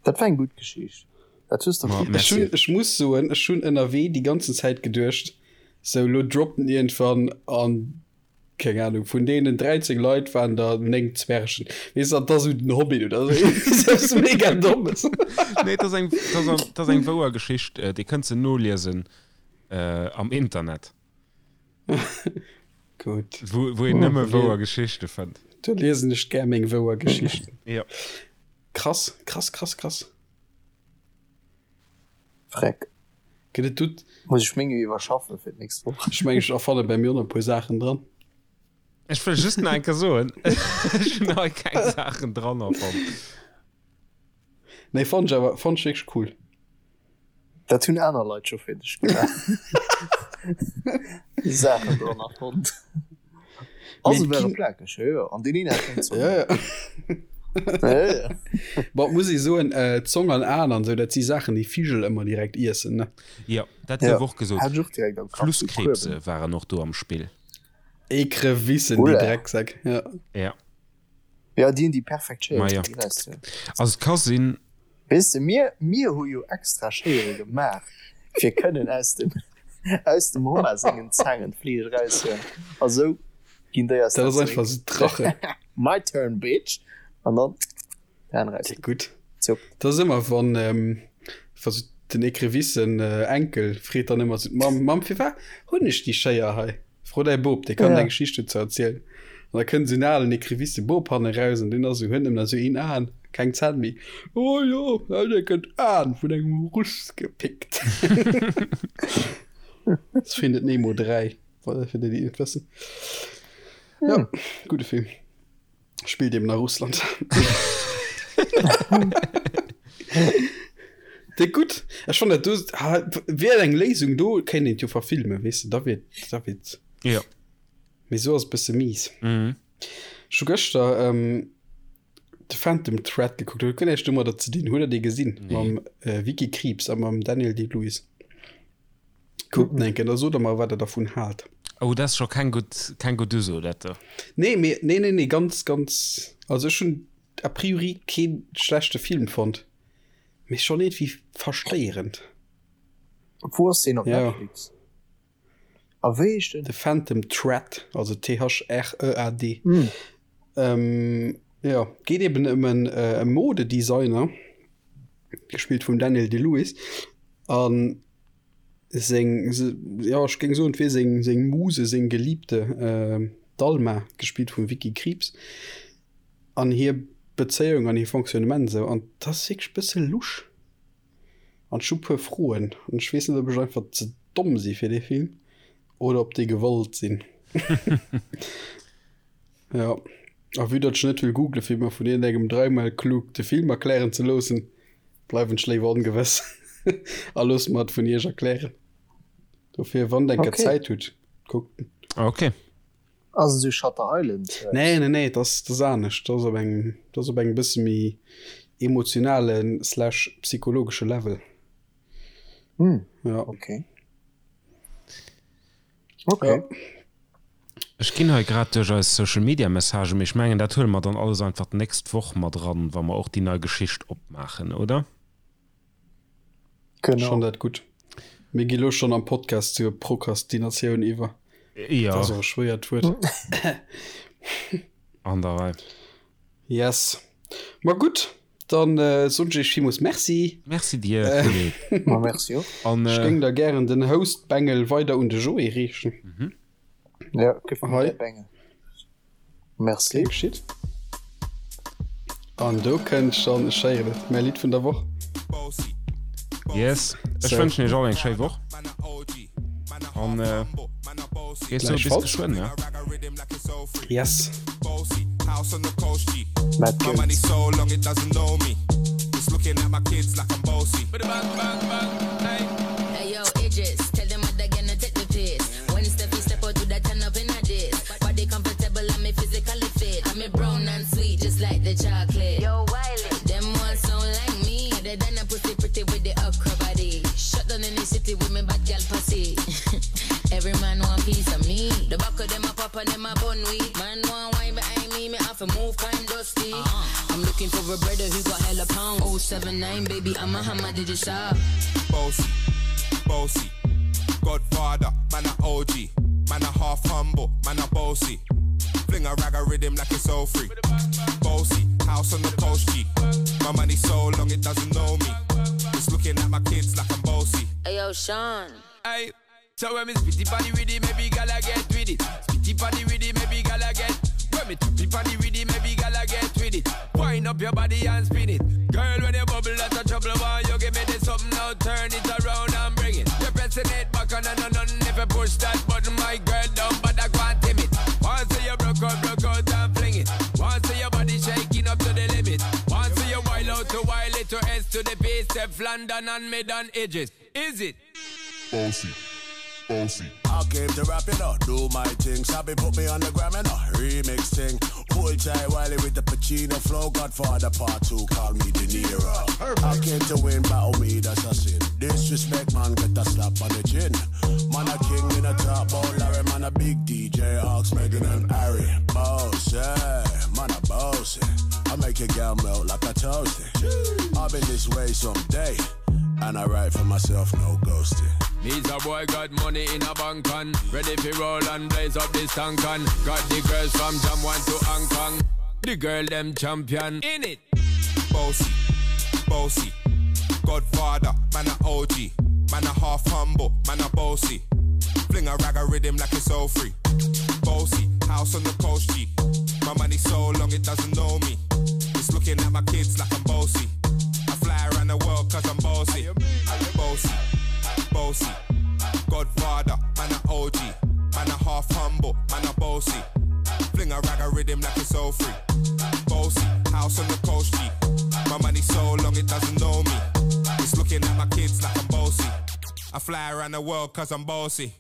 Dat war eng gutt Geschicht. Dat hues de Ma, gutt merci. Ech hunn, ech muss soen, ech hunn ënnerwee déi ganzen Zäit geduecht, sou lo droppt en iergendwann an keng Ahnung, vun deenen 13 Leit waren der 9 Zwergen. Weess de, dat ass esou den Hobbit oder sou eppes mega Dommes. Nee, dat ass eng, dat ass, dat ass eng wouer Geschicht, Dir kënnt se noliesen am Internet. Gutt. Wou, wou een nëmme wouer Geschichte fënnt. Do liesen ech gär meng wouer Geschichten. Jo. Krass, krass, krass, krass. Freck. Gëtt et dout? Muss ech meng iwwerschaffen fir d'nächst Woch. Ech mengen ech erfanne bei mir och nach e puer Saachen dran. Ech wëll just nach eng Kéier soen, ech hunn hei keng Saachen dran erfonnt. Nee, fonnt ech awer, fonnt ech wierklech cool. Dat hunn aner Leit scho fir dech gemaach. Saachen dran erfonnt. Also ware plakeg, jo, jo. An deen een hat keng Zong. Ja, ja. Ja, ja. Bon, muss ich soen, äh, Zong an Aen an sou, dat si Saachen, déi Vigel ëmmer direkt iessen, ne? Jo, dat gouf och gesot. Hat ech och direkt am Kapp. Flusskrebse waren och do am Spill. Ekrevissen, déi Drecksäck, ja. Ja. Ja, déi hunn déi perfekt Schéier. Ma ja. Also et ka sinn. Weess de, mir, mir hu jo extra Schéiere gemaach, fir kënnen aus dem, aus dem Hummer sengen Zaangen d'Fleesch eraushuelen. A sou ginn déi eis Dat ass einfach sou d'Drache. My turn, bitch! An dann d'Hänn eraus. Ja, gutt. Zupp. Dat ass ëmmer, wann, wa sou den Ekrevissen Enkel freet dann ëmmer sou d'Mamm, Mamm, firwat hunn ech déi Schéier hei? Fro däi Bop, dee kann ja. eng Geschicht dozou erzielen. An da kënnt esou en alen Ekrevisse Bop hanne raus an deen ass esou, huet nëmmen nach esou een Aen, keng Zänn méi. Oh jo, dee gëtt Aen vun engem Russ gepickt. Das Findet Nemo 3, fir déi, déi et net wëssen. Ja, gudde Film. Spillt eben a Russland. Déi gutt. Ech fand dat do ah, wär eng Léisung do kéint een jo verfilmen, weess de, da wier da wier Ja. Mee sou ass bësse mies. Mhm. Ech hu gëschter ähm, The Phantom Thread gekuckt, huet guer näischt domadder ze dinn. Hutt der dee gesinn? Nee. Mam äh, Vicky Krieps a mam Daniel Day-Lewis. Kuckt en eng Kéier, da sot der mer, wat der dervun haalt. Oh, dat ass scho keng gutt, keng gutt Uso, dat do. Nee, mee, nee, nee, nee, ganz, ganz, also ech hunn a priori kee schlechte Film fonnt, mee schonn iergendwéi verstéierend. Wou ass deen? Op Netflix? A wéi heescht en? The Phantom Thread, also T-H-R-E-A-D. Jo, geet eben ëm en Modedesigner, gespillt vum Daniel Day-Lewis, a seng, jo ech géing soen, et wier seng, seng Muse, seng Geliebte, d'Alma, gespillt vum Vicky Krieps, an hir Bezéiung an hir Fonctionnement esou. An dat ass wierklech e bësse lusch. An ech hu puer Froen. An ech weess net, ob ech einfach ze domm si fir dee Film oder ob déi gewollt sinn. Jo, a vue datt ech net wëll googlen, fir mer vun iergendengem dreimal klug de Film erklären ze loossen, bleiwen ech léiwer ongewëss a loosse mer et vun iech erklären. Dofir, wann der eng Kéier Okay. Zäit hutt, kuckt en. Okay. Ass esou Shutter Island Zeugs? Nee, nee, nee, dat ass, dat ass anescht. Dat ass op engem, dat ass op engem bësse méi emotionalen slash psychologesche Level. Hm, Ja. okay. Okay. Ja. Ech ginn hei grad duerch eis Social Media Messagen, mee ech mengen dat huele mer dann alles einfach d'nächst Woch mat eran, wa mer och déi nei Geschicht opmaachen, oder? Genau. Schon dat gutt. Mir gi lo schon am Podcast zur Prokrastinatioun iwwer. Ja. Dat ass och e schwéiert Wuert. An der Rei. Yes. Ma gutt, dann äh, soen ech iech villmools Merci. Merci dir, Philippe. Ma merci och. An, Ech äh, géing da gären den Host-Bengel weider un de Joé reechen. Ja, gëff mir Hei. däi Bengel. Merci. Gär geschitt. An do kënnt schonn, ech héieren et, mäi Lidd vun der Woch. Yes, ech So. wënschen iech all eng schéi Woch. An äh, geet sou bis Gläichfalls. geschwënn, ne? Yes. Matt Goetz. Hey yo, Idris, tell them what they're gonna take the piss. When Steffi step out, do that turn up in a this. Body comfortable, I'm me physically fit. I'm a brown and sweet, just like the chocolate. Yo, Wiley, them ones sound like me. They done a pussy pretty with the okra body. Shut down in the city with me bad gal pussy. Every man want piece of me. The back of them a pop and them a bun weed. Man want wine behind me, me have to move kind dusty. I'm looking for a brother who got hella pound. 079, baby, I'm a hammer, did you shop? Bossy, bossy. Godfather, man a OG. Man a half humble, man a bossy. Fling a rag a rhythm like it's all free. Bossy, house on the coast G. My money so long it doesn't know me. It's looking at my kids like I'm bossy. Hey yo, Sean. Hey, so when me spitty body with it, maybe gala get with it. Spitty body with it, maybe gala get. When me tappy body with it, maybe gala get with it. Wind up your body and spin it. Girl, when you bubble out of trouble, why you give me this something now? Turn it around and bring it. You're pressing it back on and on and if you push that button, my girl, don't bother go and timid. Once you broke out, broke out and fling it. Once your body shaking up to the limit. Once you wild out to wild it to S to the P, step London and mid on edges. Is it? Bossy, bossy. I came to rap it up, do my thing. Sabi put me on the gram and a remix thing. Pull tight Wiley with the Pacino flow. Godfather part two, call me De Niro. I came to win, battle me, that's a sin. Disrespect, man, get a slap on the chin. Man a king in a top, oh Larry, man a big DJ, Ox, Megan and Harry. Boss, yeah, man a boss. I make your girl melt like a toasty. I've been this way someday. And I write for myself, no ghosting. Needs a boy got money in a bank on Ready fi roll and blaze up this tank on Got the girls from Jam 1 to Hong Kong The girl them champion In it Bossy, bossy. Godfather, man a OG. Man a half humble, man a bossy. Fling a rag a rhythm like it's all free. Bossy, house on the coast G. My money so long it doesn't know me. It's looking at my kids like I'm bossy. I fly around the world cause I'm bossy. Bossy, bossy. Godfather, man a OG. Man a half humble, man a bossy. Fling a rag a rhythm like it's all free. Bossy, house on the coast G. My money so long it doesn't know me. It's looking at my kids like I'm bossy. I fly around the world cause I'm bossy.